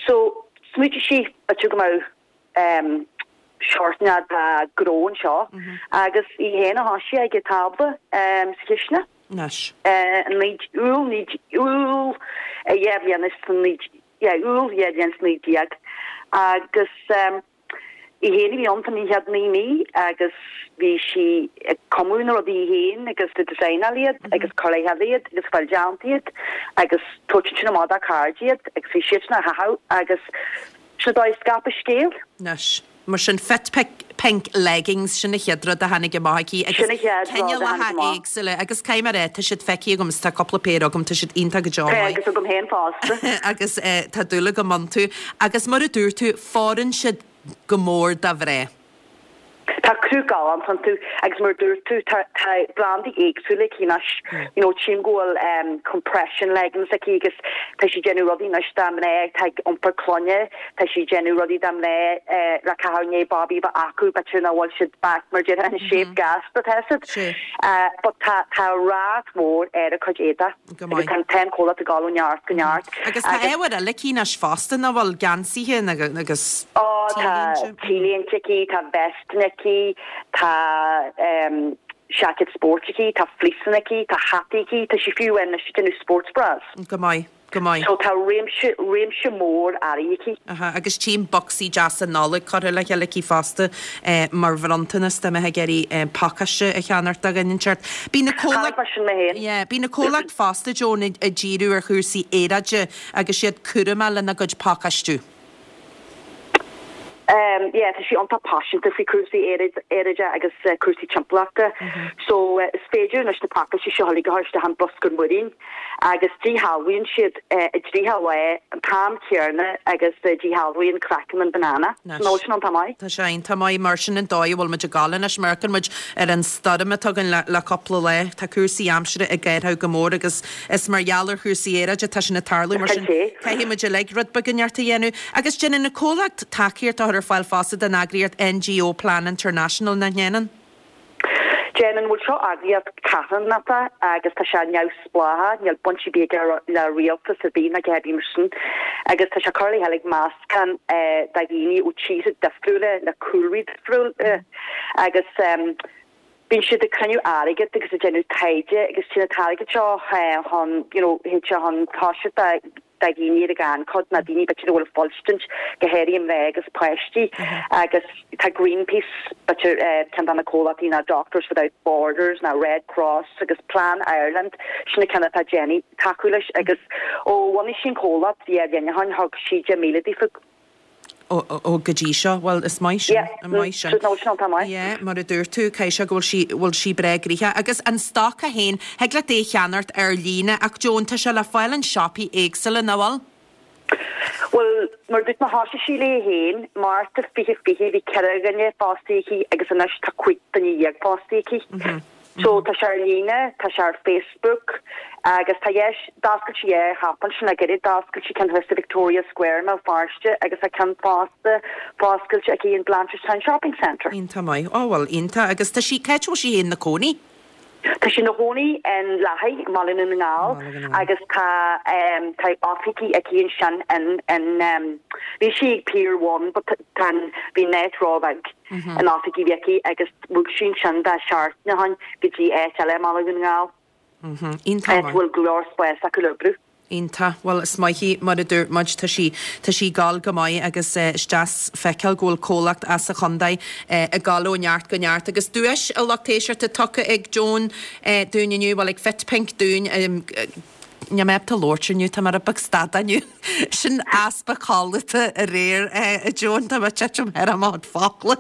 So, smaoitigh sí, b'fhéidir go mbeadh um, seort de ghnó anseo agus í féin a thoisigh ag an tábla um, sa chisteanach. Anois. Uh, Iúil, Iúil, 2019 yeah, Iúil 2019 agus. Í féin a bhí ann fán chéad 9 mí agus bhí sí ag cumadh na rudaí í féin agus ag designáil iad agus cur le chéile iad agus fáil déanta iad agus tabhairt ansin amach dá cairde iad agus bhí siadsan á chaitheamh agus sin an dóigh a scaip an scéal. Anois, mar sin, Fit Pink Leggings, sin an chéad rud a tháinig amach aici agus Sin an chéad rud a tháinig cineálacha amach. éagsúla agus caithfidh mé a rá, tá siad feicthe agam is tá cúpla péire agam, tá siad iontach go deo Tá maith. agus agam féin fosta. Agus tá dúil agam iontu. Agus mar a dúirt tú, fóireann siad go mór do mhná. Tá cruth galánta iontu agus mar a dúirt tú tá tá brandaí éagsúla aici anois. You know tchím go bhfuil em compression leggings aici agus tá sí ag déanamh rudaí anois do mhná atá ag iompar clainne, tá sí ag déanamh rudaí do mhná eh le caitheamh i ndiaidh babaí a bheith acu b'fhéidir nach bhfuil siad back mar déarfá in shape gasta tá siad. Eh but tá tá rath mór ar a cuid éadaigh. Go maith. Agus tá an comhlacht ag dul ó neart go neart. Agus tá ábhair eile aici anois fosta, nach bhfuil? Geansaithe agus Ó, tá T-léinte. T-léinte aici, tá vestanna aici, tá seaicéid spóirt aici, tá fleeceanna aici, tá hataí aici, tá sí fiú anois ag déanamh sports bras. Go maith. Go maith. So tá réimse, réimse mór earraí aici. Aha, agus tchím bocsaí deasa Nollag curtha le chéile aici fosta mar bhronntanas dá mbeifeá ag iarraidh pacáiste a cheannacht do dhuine inteacht. Bíonn an comhlacht, Cheannaigh mé sin mé féin. yeah, bíonn an comhlacht fosta, Joan, ag díriú ar chúrsaí aeráide agus iad cúramach lena gcuid pacáistiú. Yeah, tá sí iontach paiseanta faoi cúrsaí aeráide agus cúrsaí timpeallachta. So is féidir anois na pacáistí seo uilig a chur isteach in bruscar muirín agus díshealbhaíonn siad i dtríocha lá an t-am céanna agus díshealbhaíonn craiceann an banana. Nó sin iontach maith. Tá sé iontach maith mar sin an dóigh a bhfuil muid ag gabháil anois. Má amharcann muid ar an stoirm atá againn le cúpla lá, tá cúrsaí aimsire ag athrú go mór agus Is mar gheall ar chúrsaí aeráide atá sin ag tarlú, mar sin caithfidh muid uilig rud beag inteacht a dhéanamh. Agus déanann an comhlacht tacaíocht a chur ar fáil fosta don eagraíocht NGO Plan International, nach ndéanann? Déanann. Bhuel, seo eagraíocht carthanachta agus tá sé neamhspleách, níl baint ar bith aige le rialtas ar bith ná a dhath ar bith mar sin. Agus tá sé curtha le chéile ag meascán de dhaoine ó tíortha difriúla le cúlraí difriúla agus Bíonn siad ag cruinniú airgead agus ag déanamh taighde agus téann an t-airgead seo chun, you know, théid sé chun tosaigh do dhaoine ar an ghannchuid nó daoine b'fhéidir a bhfuil ag fuilstint, go háirithe mná agus páistí agus tá Greenpeace, b'fhéidir ceann de na comhlachtaí nó Doctors Without Borders nó Red Cross agus Plan Ireland, sin na ceanna atá ag déanamh tacú leis agus ó bhunaigh sí an comhlacht bhí ar líne thug sí 10,000 daofa. Ó, ó, go dtí seo. Bhuel, is maith sin. Yeah. Is maith sin. No, sin iontach maith. Yeah, mar a dúirt tú, caithfidh sé go bhfuil sí, bhfuil sí breá gnoitheach. Agus an stoc é féin, thig leat é a cheannacht ar líne ach Joan, tá sé le fáil in siopaí éagsúla, nach bhfuil? Bhuel, mar a dúirt mé, thosaigh sí léi féin, Márta 2020, bhí 4 dhuine fostaithe aici agus anois tá 15 duine fostaithe aici. So tá sé ar líne, tá sé ar Facebook agus tá dheis, d'oscail sí dhá shiopa ansin le gairid, d'oscail sí ceann thuas sa Victoria Square i mBéal Feirste agus tá ceann fosta foscailte aici in Blanchardstown Shopping Centre. Iontach maith. Ó bhuel, iontach. Agus tá sí, cá háit a bhfuil sí féin ina cónaí? Tá sí ina chónaí in Lathaigh, i mBaile Dhún na nGall agus tá tá oifigí aici ansin in in bhí sí ag Pier One but tá an bhí an áit róbheag. an oifig a bhí aici agus bhog sí ansin dhá seachtain ó shin go dtí áit eile i mBaile Dhún na nGall, áit a bhfuil go leor spáis acu le oibriú. Iontach. Bhuel, is maith í, mar a dúirt muid, tá sí, tá sí ag gabháil go maith agus is deas feiceáil go bhfuil comhlacht as an chontae ag gabháil ó neart go neart. Agus duais, a lucht éisteachta, tugtha ag Joan dúinn inniu, bhuel, ag Fit Pink dúinn, Níl mé ábalta labhairt inniu, tá mé rud beag stadach inniu. Sin easpa codlata aréir, a Joan, tá mé ag titim thar mo chuid focla.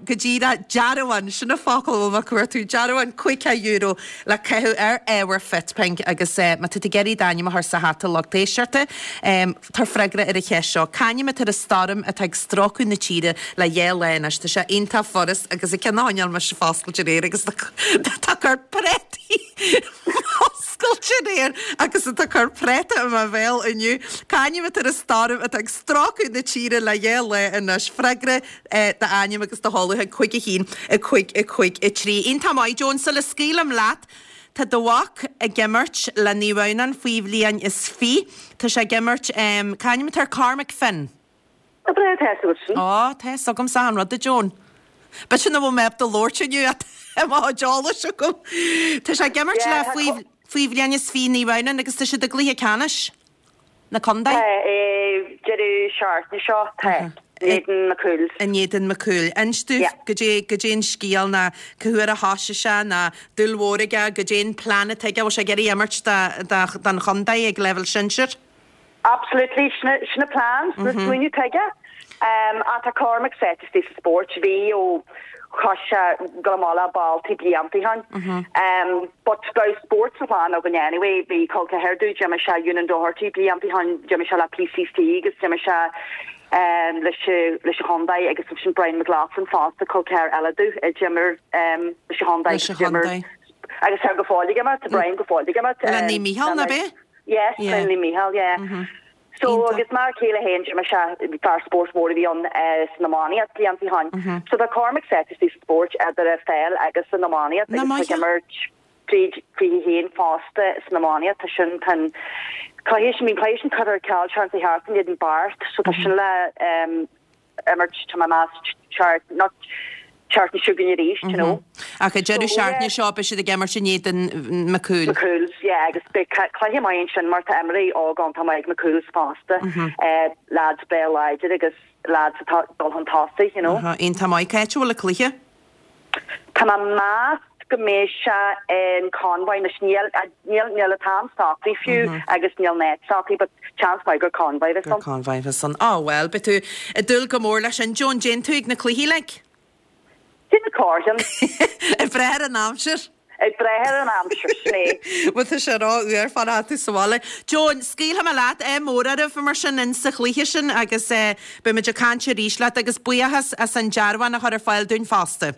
Go díreach, dearbhán, sin an focal a bhfuil mé ag cuartú, dearbhán €50 le caitheamh ar ábhar Fit Pink agus má tá tú ag iarraidh d'ainm a chur sa hata lucht éisteachta, tabhair freagra ar an cheist seo, C'ainm atá ar an stoirm atá ag stróiceadh na tíre le dhá lá anois? Tá sé iontach furast agus an ceann a choinneáil mise foscailte aréir agus tá ag cur préataí Oscailte aréir agus atá ag cur préata i mo bhéal inniu. C'ainm atá ar an stoirm atá ag stróiceadh na tíre le dhá lá anois? Freagra, d'ainm agus do sheoladh chuig 5 1 5 5 3. Iontach maith, Joan. Sula scaoilim leat, tá do mhac ag imirt le Naomh Adhamhnáin faoi bhliain is fiche. Tá sé ag imirt, c'ainm atá air? Cormac Finn. Tá breá tá fhios agat sin. Á, tá fhios agamsa achan rud, a Joan. B'fhéidir nach bhfuil mé ábalta labhairt inniu ach tá mo chuid eolais agam. Tá sé ag imirt le faoi faoi bhliain is fiche Naomh Adhamhnáin agus tá siad i gcluiche ceannais na contae. Tá, deireadh seachtaine seo, tá. In éadan McCool's. In éadan McCool. Inis domh goidé, goidé an scéal ná cá huair a thoisigh sé ná dúil mhór aige, goidé an plean atá aige, bhfuil sé ag iarraidh imirt do, don chontae ag leibhéal sinsir? Absolutely, sin an plean, sin an smaoineamh atá aige. Ach tá Cormac sáite istigh sa spórt, bhí ó thosaigh sé ag dul amach le balltaí blianta ó shin. But bheadh spórt sa chlann againn anyway, bhí col ceathar domh, d'imir sé Eunan Doherty blianta ó shin, d'imir sé le PCC agus d'imir sé leis leis an chontae agus ansin Brian McLaughlin fosta, col ceathar eile domh, a d'imir leis an chontae agus d'imir agus tá go fóill ag imirt, tá Brian go fóill ag imirt. Le Naomh Mícheál, ná b'é? Yes, le Naomh Mícheál, yeah. So agus m'fhear céile féin, d'imir sé, fear spóirt mór a bhí ann san iománaíocht blianta ó shin. So tá Cormac sáite istigh sa spórt idir an pheil agus an iománaíocht agus tá ag imirt tríd 21 fosta san iománaíocht. Tá sin, tá an cluiche sin, bhí an cluiche sin curtha ar ceal seans a theacht in éadan Beart so tá sin le imirt, tá mé ag meas, seacht, not seachtain seo chugainn arís, you know. Ach an deireadh seachtaine seo beidh siad ag imirt in éadan McCool. McCool's, yeah, agus beidh cluiche maith ansin mar tá imreoirí óg iontach maith ag McCool's fosta, lads breá láidir agus lads atá ag dul chun tosaigh, you know. Iontach maith. Cá háit a bhfuil an cluiche? Tá mé ag meas go mbeidh sé in Convoy anois, níl, níl, níl an t-am socraithe fiú agus níl an áit socraithe but seans maith gur Convoy a bheas ann. Gur Convoy a bheas ann. Á bhuel, beidh tú ag dúil go mór leis sin. Joan, dtéann tú ag na cluichí like? Déanamh corrcheann. Ag brath ar an aimsir. Ag brath ar an aimsir, sin é. Bhuel tá sé ró-fhuar fanacht sa bhaile. Joan, scaoilfidh mé leat, ádh mór oraibh mar sin in sa chluiche sin agus beidh muid ag caint arís leat agus buíochas as an dearbhán a chur ar fáil dúinn fosta.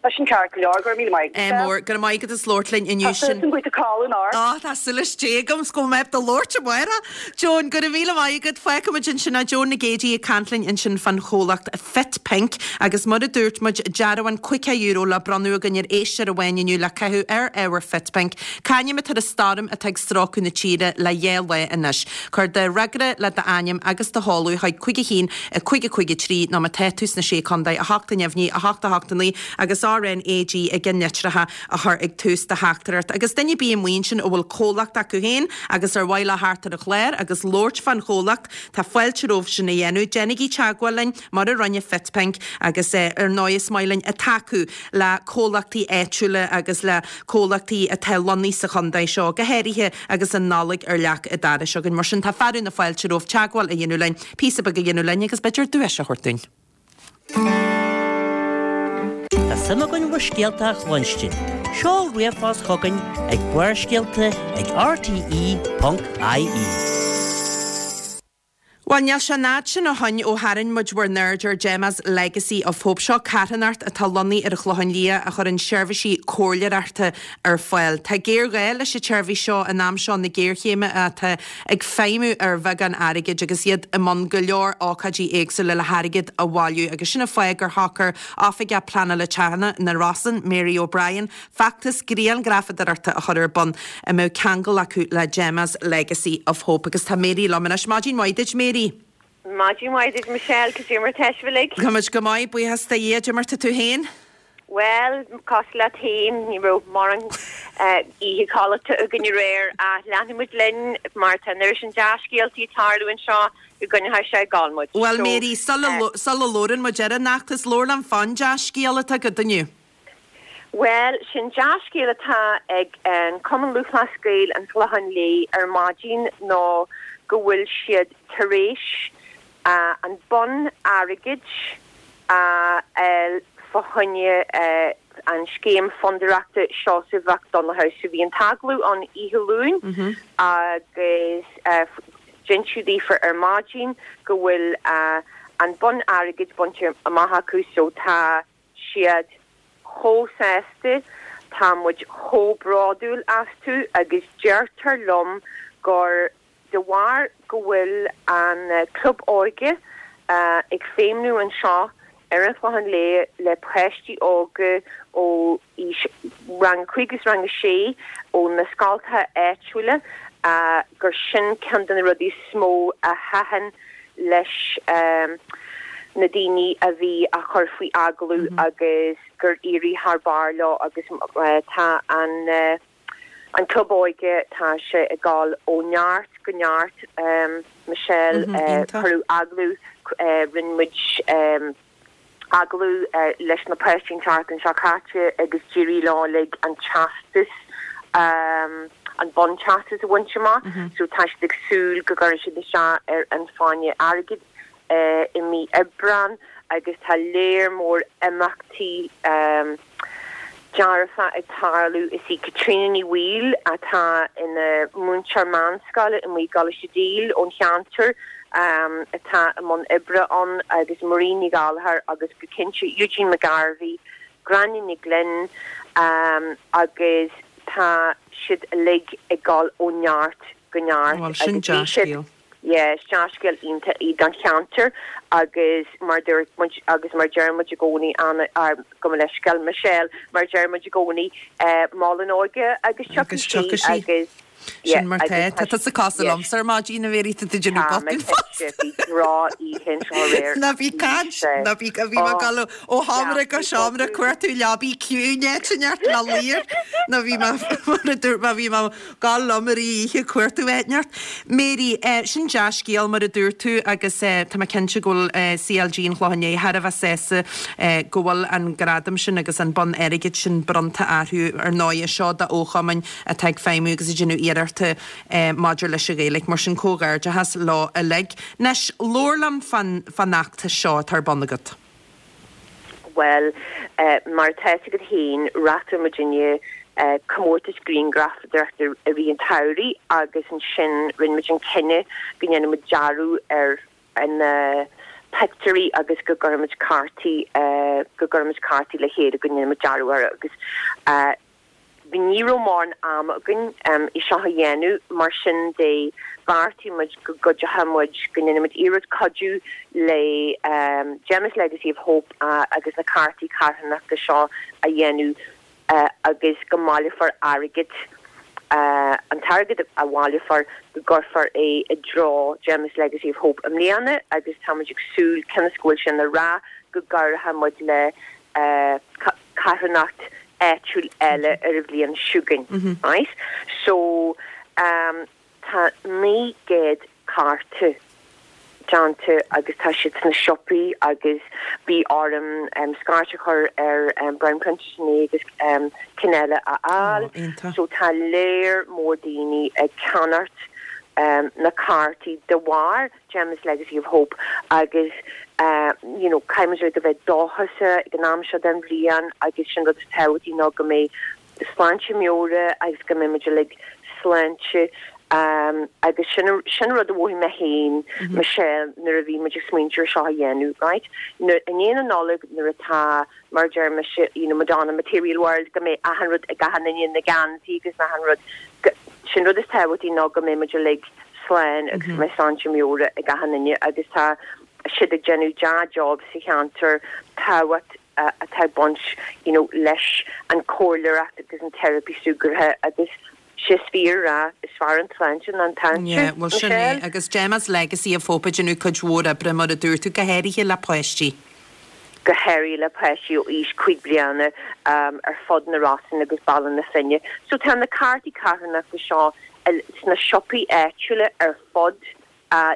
Tá sin ceart go leor, go raibh míle maith agat. Ádh mór, go raibh maith agat as labhairt linn inniu Tá súil agam go bhfuil tú ag codladh anocht. Á, tá súil is Dé agam 's go mbeidh mé ábalta labhairt amárach. Joan, go raibh míle maith agat. Fágfaidh muid ansin é. Joan Nic Géidigh ag caint linn ansin fán chomhlacht Fit Pink agus mar a dúirt muid, dearbhán €50 le bronnadh againn ar éisteoir amháin inniu le caitheamh ar ábhar Fit Pink. C'ainm atá ar an stoirm atá ag stróiceadh na tíre le dhá lá anois? Cuir do fhreagra le d'ainm agus do sheoladh chuig 5 1 5 5 3 nó má tá tú sna Sé Contae, 8 a neamhní, 8 8 9 agus RNAG i gceannlitreacha a chur ag tús do theachtaireacht. Agus duine ar bith amuigh ansin a bhfuil comhlacht acu féin agus ar mhaith leo theacht ar an chlár agus labhairt fán chomhlacht, Tá fáilte romhaibh sin a dhéanamh. Déanaigí teagmháil linn, mar a rinne FitPink, agus ar ndóigh is maith linn tacú le comhlachtaí áitiúla agus le comhlachtaí atá lonnaithe sa chontae seo, go háirithe agus an Nollaig ar leac an dorais againn. Mar sin tá fearadh na fáilte romhaibh teagmháil a dhéanamh linn, píosa beag a dhéanamh linn agus b'fhéidir duais a thabhairt dúinn. Tá suim againn bhur scéalta a chluinstin. Seol ríomhphost chugainn ag barrscéalta ag rte.ie. Bhuel, níl sé an fhad sin ó shoin ó tharraing muid bhur n-aird ar Gemma's Legacy of Hope. Seo carthanacht atá lonnaithe ar an Chlochán Liath a chuireann seirbhísí comhairleoireachta ar fáil. Tá géarghá leis an tseirbhís seo in am seo na géarchéime atá ag feidhmiú ar bheagán airgid agus iad i mbun go leor ócáidí éagsúla le hairgead a bhailiú agus sin an fáth gur shocair Oifigeach Pleanála Teanga na Rosann, Mary O'Brien, feachtas grianghrafadóireachta a chur ar bun a mbeadh ceangal acu le Gemma's Legacy of Hope. Agus tá Mary liom anois. Maidin mhaith duit, Mary. Maidin mhaith duit, Michelle. Cad é mar tá sibh uilig? Tá muid go maith, buíochas do Dhia. Cad é mar tá tú féin? Bhuel, cosúil leat féin, ní raibh mórán oíche codlata againn aréir ach leanfaidh muid linn mar tá an oiread sin dea-scéaltaí ag tarlú anseo go gcoinneoidh sé ag gabháil muid. Bhuel, Mary, sula labhrann muid ar an fheachtas, labhair liom fán dea-scéal atá agat inniu. Bhuel, sin dea-scéal atá ag an Cumann Lúthchleas Gael an Chlocháin Léith ar maidin ná go bhfuil siad tar éis an bonn airgid a fháil fá choinne an scéim fondúireachta Seosamh Mhic Donnchadha. So bhí an t-agallamh ann oíche Luain agus d'inseadh daofa ar maidin go bhfuil an bonn airgid bainte amach acu so tá siad chomh sásta, tá muid chomh bródúil astu agus deirtear liom gur De bharr go bhfuil an Club Óige ag feidhmniú anseo ar an Chlochán Liath le páistí óga ó aois rang a 5 agus rang a 6 ó na scoltacha áitiúla gur sin ceann de na rudaí is mó a thaitin leis na daoine a bhí á chur faoi agallamh agus gur éirigh thar barr leo agus tá an An Club Óige, tá sé ag dul ó neart go neart, Michelle. Cuireadh agallamh. Rinne muid agallamh leis na páistí an tseachtain seo caite agus d'éirigh leo uilig an teastas, an bonn teastas a bhaint amach. So tá siad ag súil go gcuirfidh siad isteach ar an Fáinne Airgid i mí Aibreán agus tá léar mór imeachtaí dearfa ag tarlú. Is í Caitríona Ní Bhaoill, atá ina múinteoir meánscoile i nGaoth gColáiste Dale ón cheantar, atá i mbun oibre ann agus Marie Ní Ghallchóir agus go cinnte Eugene McGarvey, Gráinne Ní Ghlinn agus tá siad uilig ag dul ó neart go neart Bhuel, sin agus bhí siad dea-scéal. Yeah, is dea-scéal iontach í don cheantar agus mar dúirt muid agus mar deir muid i gcónaí, Anna, gabh mo leithscéal, Michelle, mar deir muid i gcónaí, mol an óige agus tiocfaidh sí tiocfaidh sí. agus yeah, Sin mar agus tá. tá Tá tusa cosúil yes. liomsa ar maidin, a Mhéirí, tá tú ag déanamh Tá mé botún fosta. cinnte, bhí droch-oíche anseo aréir. Ná bí caint, Bhí sé. ná bí, bhí mé ag Oh, dul ó sheomra go yeah, bhí seomra botún. cuartú leabaí ciúin áit inteacht le luí air. Nó bhí mé, mar a dúirt mé, bhí mé Gabháil liom ar oíche cuartú áit inteacht. Mary, sin dea-scéal mar a dúirt tú agus tá mé cinnte go bhfuil CLG an Chlocháin Léith thar a bheith sásta go bhfuil an gradam sin agus an bonn airgid sin bronnta orthu. Ar ndóighe, seo do fhochumainn atá ag feidhmiú agus ag déanamh iarrachta maidir leis an Ghaeilge. Mar sin comhghairdeachas leo uilig. Anois, labhair liom fán fheachtas seo atá ar bun agat. Bhuel, mar atá fhios agat féin, reáchtáil muidinne comórtas grianghrafadóireachta i rith an tsamhraidh agus ansin rinne muid an cinneadh go ndéanfadh muid dearadh ar na pictiúirí agus go gcuirfeadh muid cártaí, go gcuirfeadh muid cártaí le chéile, go ndéanfadh muid dearadh orthu agus. Ní raibh mórán ama againn é seo a dhéanamh, mar sin de bheartaigh muid go gcuideochadh muid, go ndéanfadh muid iarracht cuidiú le Gemma's Legacy of Hope agus na cártaí carthanachta seo a dhéanamh agus go mbaileofar airgead, an t-airgead a bhaileofar, go gcuirfear é i dtreo Gemma's Legacy of Hope i mbliana agus tá muid ag súil, cionn is go bhfuil sé ina rath, go gcabhróidh muid le carthanacht áitiúil eile ar an bhliain seo chugainn, right? So, tá 900 cárta déanta agus tá siad sna siopaí agus bhí orm scairt a chur ar Brown Printers inné agus cinn eile a fháil. So tá léar mór daoine ag ceannacht na cártaí de bharr Gemma's Legacy of Hope agus you know caithfidh muid a bheith dóchasach ag an am seo den bhliain agus sin rud is tábhachtaí ná go mbeidh sláinte meabhrach agus go mbeidh muid uilig sláinte agus sin sin rud a mhothaigh mé féin Michelle nuair a bhí muid ag smaointiú ar seo a dhéanamh right nuair i ndiaidh na Nollag nuair atá mar a deir mise, you know, Madonna Material World, go mbeidh achan rud ag achan duine, na geansaí agus achan rud, go, sin rud is tábhachtaí ná go mbeidh muid uilig slán agus go mbeidh sláinte meabhrach ag achan duine agus tá siad ag déanamh dea-job sa cheantar, tábhacht atá ag baint, you know, leis an comhairleoireacht agus an teiripí súgartha agus sé is fíor a rá, is fearr an tsláinte ná an táinte, Yeah, bhuel sin é. Michelle. Agus Gemma's Legacy of Hope ag déanamh cuid mhór oibre, mar a dúirt tú, go háirithe le páistí. Go háirithe le páistí ó aois 5 bliana ar fud na Rosann agus Baile na Finne. So tá na cártaí carthanachta seo sna siopaí áitiúla ar fud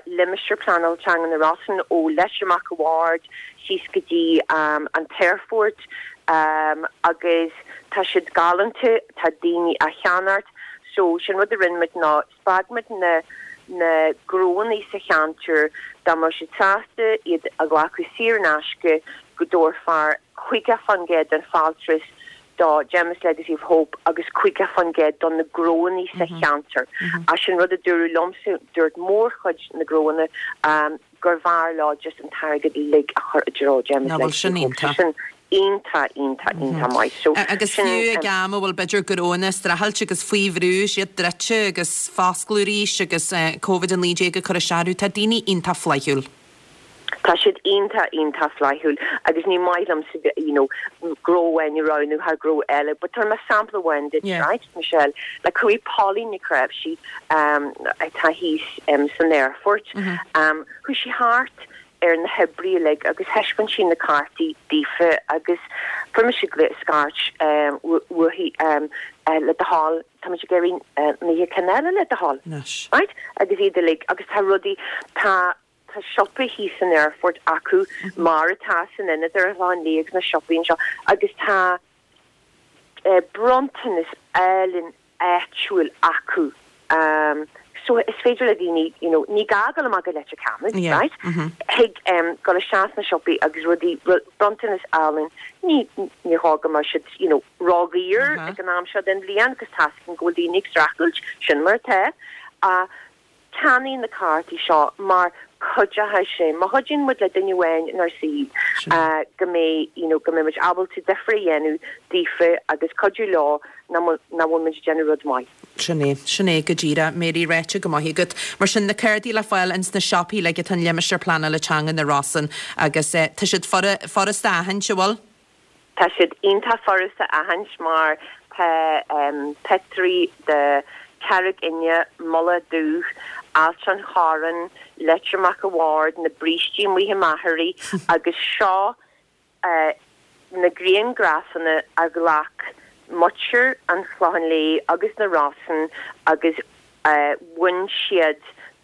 Limistéar Pleanála Teanga na Rosann, ó Leitir Mac a' Bhaird síos go dtí an t-aerfort agus tá siad galánta, tá daoine á cheannacht. So sin rud a rinne muid ná spreag muid na na gnóanna sa cheantar dá mbeadh siad sásta iad a ghlacadh saor in aisce go dtabharfar 50% den fáltas do Gemma's Legacy of Hope agus 50% do na gnóanna sa cheantar. Ach sin rud a dúradh liomsa, dúirt mórchuid na gnóanna gur bhfearr leo just an t-airgead uilig a chur i dtreo Gemma's Ná bhfuil Legacy sin of Hope. So iontach. sin iontach, iontach, iontach maith. So Agus sin. fiú ag am a bhfuil b'fhéidir gnóanna ag streachailt agus faoi bhrú, siad druidte agus foscladh arís agus Covid-19 ag cur isteach orthu, tá daoine iontach flaithiúil. Tá siad iontach, iontach flaithiúil agus ní maith liomsa you know gnó amháin a roghnú thar gnó eile but tabharfaidh mé sampla amháin duit, Yeah. right, Michelle, like chuaigh Pauline Nic Raibhsí um atá thíos um san aerfort um chuaigh sí thart ar na hoibrithe uilig agus thaispeáin sí na cártaí daofa agus fuair mise scairt um uaithi um le do thoil tá muid ag iarraidh 90 ceann eile le do thoil. Anois. Right? Agus iad uilig agus tá rudaí tá. tá siopa thíos san aerfort acu mar atá san ionad ar an Chlochán Liath agus na siopaí anseo agus tá bronntanas álainn áitiúil acu so is féidir le daoine you know ní gá dul amach go Leitir Ceanainn Yeah. right thig dul isteach sna siopaí agus rudaí bronntanas álainn ní ní gá go mbeadh siad you know ródhaor ag an am seo den bhliain agus tá a fhios againn go bhfuil daoine ag streachailt sin mar atá ach Ceannaigh na cártaí seo mar cuideoidh sé, má chuidíonn muid le duine amháin inár saol go mbeidh, you know, go mbeidh muid ábalta difear a dhéanamh daofa agus cuidiú leo nach bhfuil muid ag déanamh rud maith. Sin é, sin é go díreach, Mary, ráite go maith agat. Mar sin, na cártaí le fáil ins na siopaí uilig atá in Limistéar Pleanála Teanga na Rosann agus tá siad furasta a aithint, an bhfuil? Tá siad iontach furasta a aithint mar tá pictiúirí de Charraig Fhinne, Mullach Dubh, Ailt an Chorráin, Leitir Mac a' Bhaird, na brístí amuigh i Machairí agus seo na grianghrafanna a ghlac muintir an Chlocháin Léith agus na Rosann agus bhain siad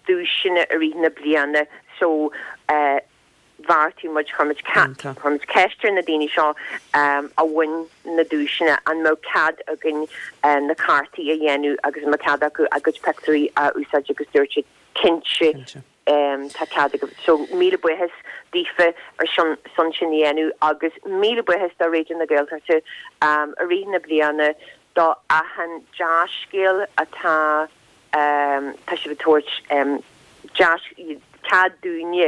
duaiseanna i rith na bliana so bheartaigh muid, chuir muid, chuir muid ceist ar na daoine seo a bhain na duaiseanna an mbeadh cead againn na cártaí a dhéanamh agus an mbeadh cead acu a gcuid pictiúirí a úsáid agus dúirt siad cinnte tá cead agaibh. So míle buíochas daofa ar son sin a dhéanamh agus míle buíochas do Raidió na Gaeltachta i rith na bliana do achan dea-scéal atá tá sibh ag tabhairt deis, cead dúinne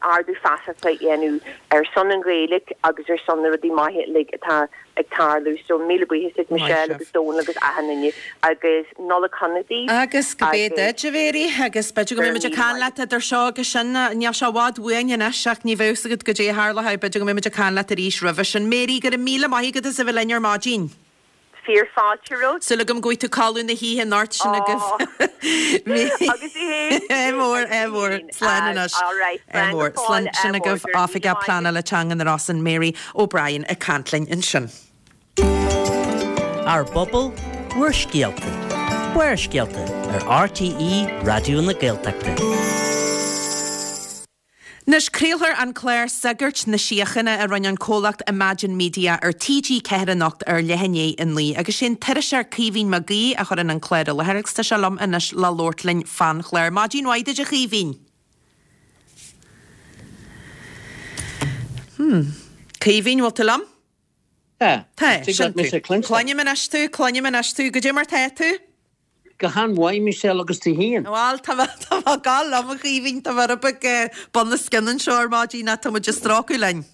ardú feasachta a dhéanamh ar son an Ghaeilge agus ar son na rudaí maithe uilig atá ag tarlú. So míle buíochas duit Michelle agus Dónal agus achan duine agus Nollaig shona daoibh. Agus go b'é duit, a Mhary, agus b'fhéidir go mbeidh muid ag caint leat idir seo agus sin. Níl sé i bhfad uainn anois ach ní bheadh 's agat goidé a tharlóidh, b'fhéidir go mbeidh muid ag caint leat arís roimhe sin. Mary, go raibh míle maith agat as a bheith linn ar maidin. Fíor fáilte romhat. Súil agam go bhfaighidh tú codladh na hoíche anocht sin agaibh. Agus í fhéin. Ádh mór, ádh mór. Slán anois. All right, Ádh slán mór. go fóill, Slán sin ádh mór. agaibh. Go raibh míle Oifigeach maith agat. Pleanála Teanga na Rosann, Mary O'Brien ag caint linn ansin. Ár bpobal, bhur scéalta. Barrscéalta ar RTÉ Raidió na Gaeltachta. Anois, craolfar an clár Sagairt na Síochána a rinne an comhlacht Imagine Media ar TG4 anocht ar leath i ndiaidh a 9 agus sé an t-iriseoir Caoimhín Mac Aoidh a chuireann an clár i láthair agus tá sé liom anois le labhairt linn fán chlár. Maidin mhaith duit a Chaoimhín! Hmm. Caoimhín, bhfuil tú liom? Tá. Tá, Tig sin leat mise tú. a chluinstin. Cluinim anois tú, cluinim anois tú. Goidé mar tá tú? Go han-mhaith, Michelle, agus tú féin? Bhal, tá mé, tá mé ag gabháil liom, a Chaoimhín, tá mé rud beag bun os cionn anseo ar maidin ach tá muid ag strócadh linn.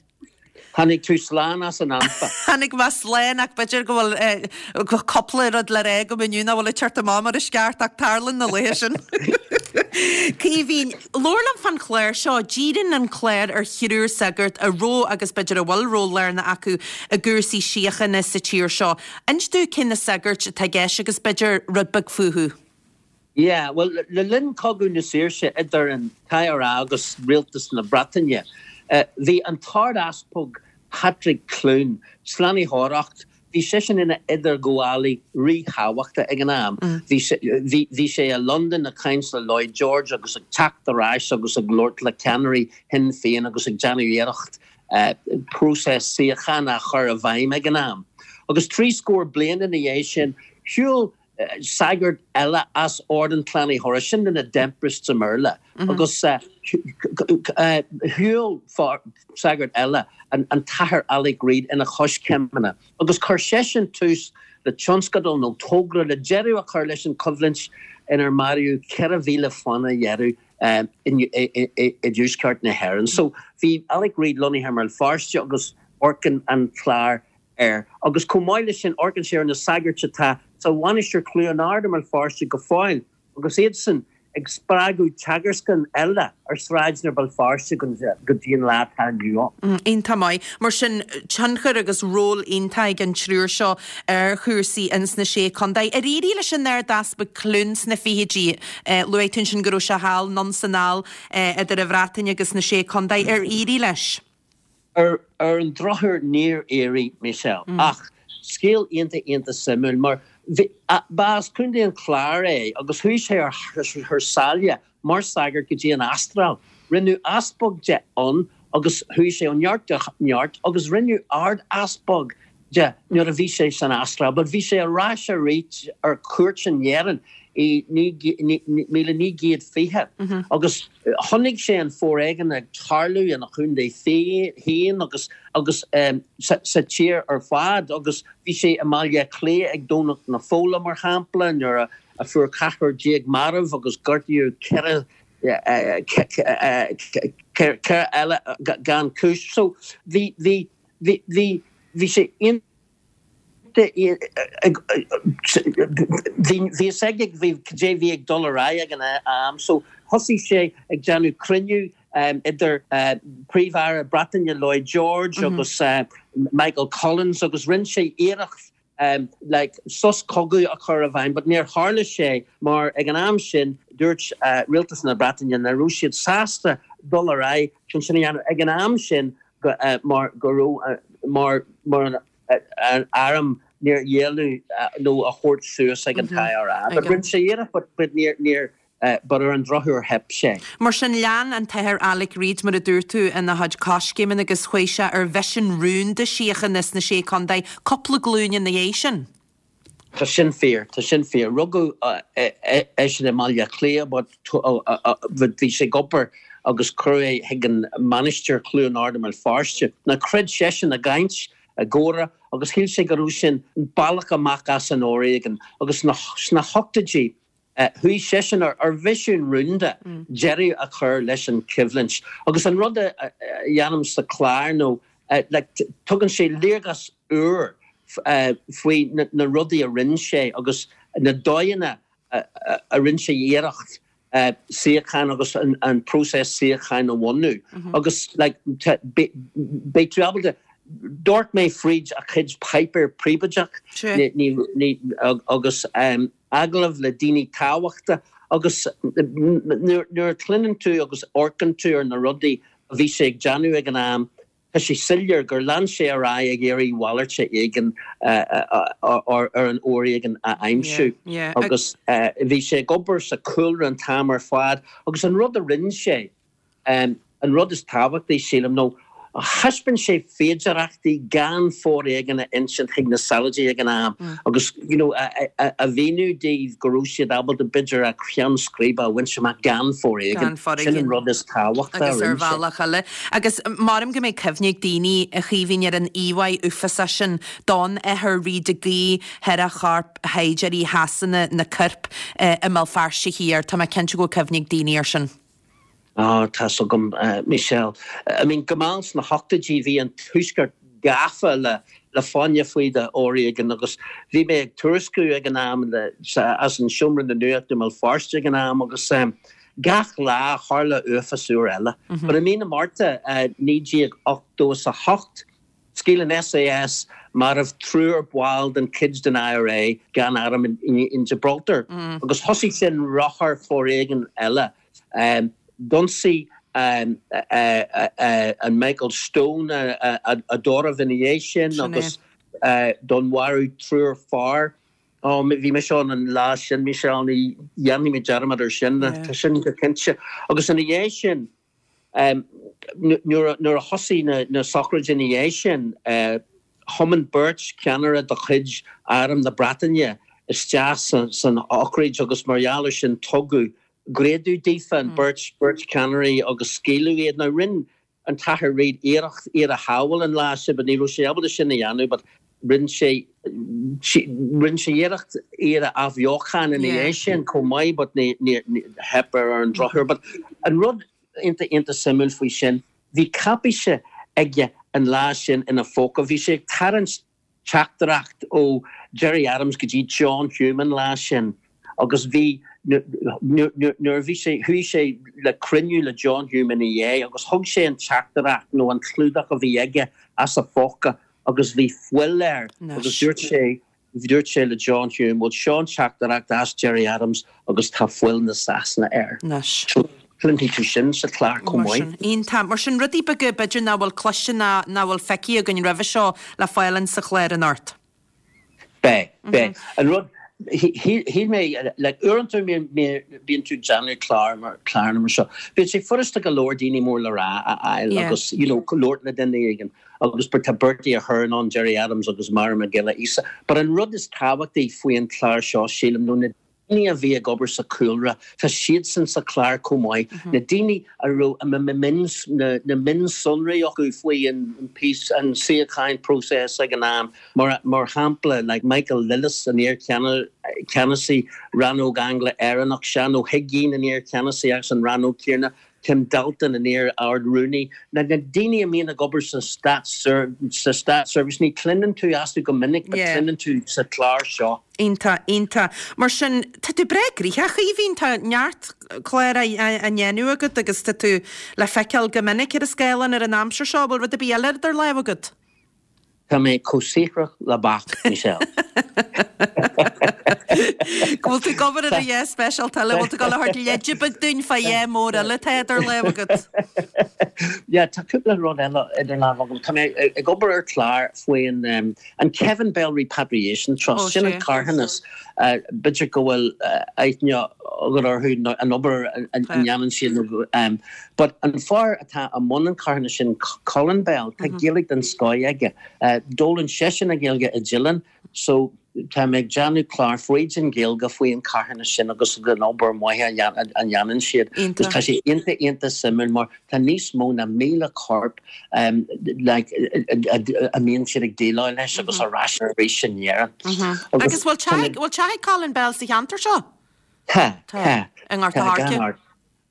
Tháinig tú slán as an anfa. Tháinig mé slán ach b'fhéidir go bhfuil cúpla rud le rá agam inniu nach bhfuil ag teacht amach mar is ceart ach tarlaíonn na laethe sin. Caoimhín, labhair liom fán chlár seo. Díríonn an clár ar thriúr sagart a raibh agus b'fhéidir a bhfuil ról lárnach acu i gcúrsaí síochána sa tír seo. Inis dúinn cé na sagairt atá i gceist agus b'fhéidir rud beag fúthu. Yeah, bhuel, le linn Cogadh na Saoirse idir an t-IRA agus Rialtas na Breataine, bhí an tArd-Easpag Patrick Clune, Slánaitheoireacht, bhí seisean ina idirghabhálaí ríthábhachtach ag an am. Bhí sé, bhí, bhí sé i Londain ag caint le Lloyd George agus ag teacht ar ais agus ag labhairt le ceannairí Shinn Féin agus ag déanamh iarracht próiseas síochána a chur i bhfeidhm ag an am. Agus trí scór bliain ina dhiaidh sin, shiúil sagart eile as Ord an tSlánaitheora, sin na Redemptorists i mBéarla, agus shiúil sagart eile, an tAthair Alec Reid, ina choiscéimeanna agus chuir seisean tús le tionscadal nó togra le deireadh a chur leis an choimhlint inar maraíodh 4,000 fána dheireadh i dtuaisceart na hÉireann. So bhí Alec Reid lonnaithe i mBéal Feirste agus amharcann an clár air. Agus chomh maith leis sin amharcann sé ar na sagairt atá sa Mhainistir Chluain Ard i mBéal Feirste go fóill agus iadsan ag spreagadh teagascanna eile ar sráideanna Bhéal Feirste go dtí an lá atá inniu ann. Iontach maith. Mar sin, tionchar agus ról iontach ag an triúr seo ar chúrsaí ins na Sé Contae. Ar éirigh leis an Ard-Easpag Clune sna fichidí? Luaigh tú ansin go raibh sé thall, anonn 's anall, idir an Bhreatain agus na Sé Contae. Ar éirigh leis? Ar an drochuair níor éirigh, Michelle. Ach scéal iontach iontach suimiúil mar. Bhí, ba as Contae an Chláir é agus chuaigh sé ar thar sáile mar shagart go dtí an Astráil. Rinneadh easpag de ann agus chuaigh sé ó neart go neart agus rinneadh Ard-Easpag de nuair a bhí sé san Astráil. But bhí sé ar ais arís ar cuairt in Éirinn i 1920 agus chonaic sé an foréigean ag tarlú ina chontae féin agus agus sa tír ar fad agus bhí sé i mBaile Átha Cliath ag Domhnach na Fola mar shampla nuair a a fuair 14 marbh agus gortaíodh 4 4 eile gan cúis. So bhí bhí bhí bhí bhí sé iontach bhí bhí fhios aige bhí cad é bhí ag dul ar aghaidh ag an am. So thosaigh sé ag déanamh cruinniú idir Príomh-Aire Breataine Lloyd George agus Michael Collins agus rinne sé iarracht like sos cogaidh a chur i bhfeidhm but níor tharla sé mar ag an am sin dúirt rialtas na Breataine nach raibh siad sásta dul ar aghaidh chun sin a dhéanamh ag an am sin go mar go raibh mar mar an arm níor ghéilleadh nó a thabhairt suas ag an t-IRA but rinne sé iarracht but but níor níor but ar an drochuair theip sé. Mar sin, lean an tAthair Alec Reid, mar a dúirt tú, ina chuid coiscéimeanna agus chuaigh sé ar mhisean rúnda síochána sna Sé Contae cúpla glúin ina dhiaidh sin. Tá sin fíor, tá sin fíor. Rugadh eisean i mBaile Átha Cliath but bhí sé ag obair agus cuireadh é chuig an Mainistir Chluain Ard i mBéal Feirste. Now chreid seisean i gcaint, i gcomhrá agus shíl sé go raibh sin an bealach amach as an fhoréigean agus sna hochtóidí Chuaigh seisean ar mhisiún rúnda deireadh a chur leis an choimhlint. Agus an rud a dhéanaim sa chlár nó like tugann sé léargas úr faoi na rudaí a rinne sé agus na dóigheanna a rinne sé iarracht síocháin agus an próiseas síocháin a bhunú. Agus like beidh tú ábalta D'amharc mé fríd a chuid páipéar príobháideach agus agallaimh le daoine tábhachta agus nuair a chluineann tú agus amharcann tú ar na rudaí a bhí sé ag déanamh ag an am, tá sé soiléir gur lean sé ar aghaidh ag iarraidh mhalairt éigin ar an fhoréigean a aimsiú agus bhí sé ag obair sa chúlra an t-am ar fad agus an rud a rinne sé, An rud is tábhachtaí, sílim, nó thaispeáin sé féidearthachtaí gan foréigean a insint chuig na saighdiúirí ag an am agus you know a mhíniú dóibh go raibh siad ábalta b'fhéidir a cheann scríbe a bhaint amach gan foréigean. Sin an rud is tábhachtaí a rinne sé. Agus ar bhealach eile. Agus maram go mbeidh cuimhne ag daoine, a Chaoimhín, ar an íomhá uafásach sin don Athair Reid ag guí thar a chorp shaighdiúirí Shasana na coirp i mBéal Feirste Thiar. Tá mé cinnte go bhfuil cuimhne ag daoine air sin. Á, tá's agam, Michelle. I mean, go mall sna hochtóidí bhí an Tuaisceart gafa le le fáinne fí de fhoréigean agus bhí mé ag tuairisciú ag an am le as an Seomra na Nuachta i mBéal Feirste ag an am agus gach lá tharla uafás úr eile. But i mí na Márta 1988, Scaoil an SAS marbh triúr ball den chuid den IRA gan arm in Gibraltar agus thosaigh sin rothar foréigin eile. D'ionsaigh an Michael Stone a dtórramh ina dhiaidh sin agus dúnmharú triúr fear. Ó, bhí mise ann an lá sin, Michelle, ní dhéanfaidh mé dearmad ar sin, tá sin go cinnte. Agus ina dhiaidh sin, Nuair a thosaigh na sochraidí ina dhiaidh sin, thiomáin beirt cheannaire de chuid Arm na Breataine isteach san sochraid agus mar gheall air sin tugadh greadadh daofa, an beirt, beirt cheannairí agus scaoileadh iad. Now rinne an tAthair Reid iarracht iad a shábháil an lá sin but ní raibh sé ábalta sin a dhéanamh but rinne sé, rinne sé iarracht iad a athbheochan ina dhiaidh sin chomh maith but ní, ní, theip air ar an drochuair. But an rud iontach, iontach suimiúil faoi sin, bhí cáipéis aige an lá sin ina phóca, bhí sé ag tarraingt teachtaireacht ó Gerry Adams go dtí John Hume an lá sin agus bhí, nuair a bhí sé, chuaigh sé le cruinniú le John Hume ina dhiaidh agus thug sé an teachtaireacht nó an clúdach a bhí aige as a phóca agus bhí fuil air agus dúirt sé, dúirt sé le John Hume, bhuel seo an teachtaireacht as Gerry Adams agus tá fuil na Sasana air. Anois. So cluinfidh tú sin sa chlár chomh Mar maith. sin, iontach. Mar sin, rudaí beaga b'fhéidir nach bhfuil cloiste ná nach bhfuil feicthe againn roimhe seo le fáil in sa chlár anocht. Beidh, beidh. An rud, shíl mé, like, uaireanta bíonn tú ag déanamh clár mar, cláranna mar seo, bíonn sé furasta go leor daoine mór le rá a fháil agus, you know, labhairt le duine éigin agus tá Bertie Ahern ann, Gerry Adams agus Máire Mac Giolla Íosa. But an rud is tábhachtaí faoi an chlár seo, sílim, nó na daoine a bhí ag obair sa chúlra, tá siadsan sa chlár chomh maith, na daoine a raibh na mionsonraí acu faoi an peace, an síocháin process ag an am, mar shampla like Michael Lillis, an iar-cheannasaí rannóg Angla-Éireannach, Seán Ó hUiginn, an iar-cheannasaí as an rannóg céanna, Tim Dalton, an iar-Ard-Rúnaí, na daoine a mbíonn ag obair sa státseirbhís, ní chluineann tú astu go minic but cluineann tú sa chlár seo. Iontach, iontach. Mar sin, tá tú breá gnoitheach, a Chaoimhín, tá neart clár á ndéanamh agat agus tá tú le feiceáil go minic ar an scáileán ar an aimsir seo. Bhfuil rud ar bith eile idir lámha agat? Tá mé chomh saothrach le beach, Michelle. Go bhfuil tú ag obair ar a dhath speisialta eile, bhfuil tú ag dul a thabhairt leide beag dúinn fá dhath mór eile atá idir lámha agat? Yeah, tá cúpla rud eile idir lámha agam. Tá mé ag obair ar chlár faoin an Kevin Bell Repatriation Trust, sin an carthanas. B'fhéidir go bhfuil aithne agat orthu, an obair a ndéanann siad nó But an fear atá i mbun an charthanais sin, Colin Bell, tá Gaeilge den scoth aige. D'fhoghlaim seisean an Ghaeilge i Dillon so tá mé ag déanamh clár fríd an Ghaeilge faoi an carthanas sin agus an obair maith a dhéanann siad. Agus tá sé iontach iontach suimiúil mar tá níos mó ná 1,000 corp like a mbíonn siad ag déileáil leis agus ar ais arís in Éirinn. Agus bhfuil teach ag Colin Bell sa cheantar seo? Tá, tá. I nGort a' Choirce?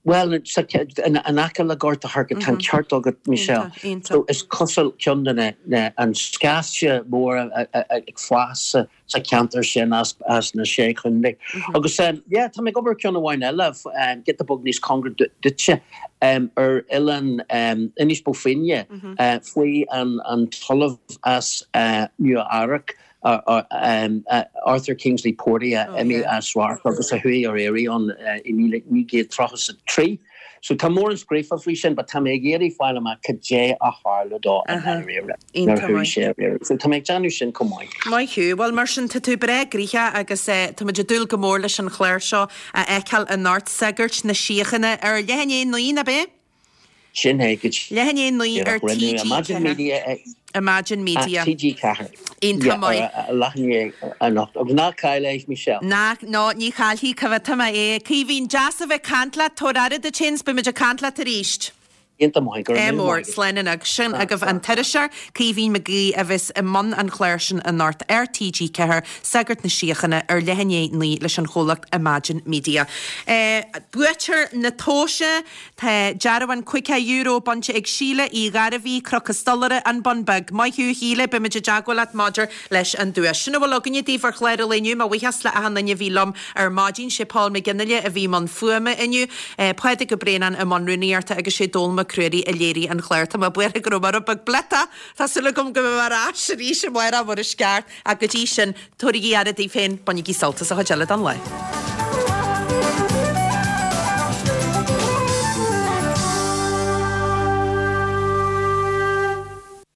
Bhuel, in aice le Gort a' Choirce, tá an ceart agat, Michelle. So is cosúil ceann de na, an scaifte mór ag fás sa cheantar sin as na Sé Chontae. Agus yeah, tá mé ag obair ar ceann amháin eile, giota beag níos cóngaraí duitse, ar oileán Inis Bó Finne, faoi an t-ollamh as Nua Eabhrac, Arthur Kingsley Purdy a imigh as radharc agus a chuaigh ar iarraidh ann i 1933. So tá mórán scríofa faoi sin but tá mé ag iarraidh fáil amach cad é a tharla dó i ndáiríre nuair a chuaigh sé ar iarraidh. So tá mé ag déanamh sin chomh maith. Maith thú. Bhuel mar sin tá tú breá gnoitheach agus tá muid ag dúil go mór leis an chlár seo a fheiceáil anocht, Sagairt na Síochána ar leath i ndiaidh 9, ab é? Sin é go Leath i ndiaidh 9 ar díreach. Rinneadh Imagine TG4. Media ag Imagine Media. TG4. Iontach maith. Ar leath i ndiaidh anocht. Agus ná caill é, Michelle. Ná, no, ní chaillfidh, coimhéadfaidh mé é. Caoimhín, deas a bheith ag caint leat, tabhair aire duit féin 's beidh muid ag caint leat arís. Iontach maith, go raibh Ádh míle mór, maith agat. slán anocht. Sin agaibh an t-iriseoir, Caoimhín Mac Aoidh, a bheas i mbun an chláir sin anocht ar TG4, Sagart na Síochána, ar leath i ndiaidh 9 leis an chomhlacht Imagine Media. Buaiteoir na tomhaise. Tá dearbhán €50 bainte ag Síle Uí Ghairbhí, Cnoc an Stolaire, An Bun Beag. Maith thú, a Shíle, beimid i dteagmháil leat maidir leis an duais. Sin a bhfuil againne daoibh ar chlár an lae inniu. Mo bhuíochas le achan duine a bhí liom ar maidin. Sé Paul McGinley a bhí i mbun fuaime inniu, Pádraig Ó Braonáin i mbun rúnaíochta agus sé Dónall Mac Ruairí a léirigh an clár. Tá mé buartha go raibh mé rud beag bliotach. Tá súil agam go mbeidh mé ar ais arís amárach mar is ceart. Ach go dtí sin, tabhairigí aire daoibh féin, bainigí sult as an chuid eile den lá.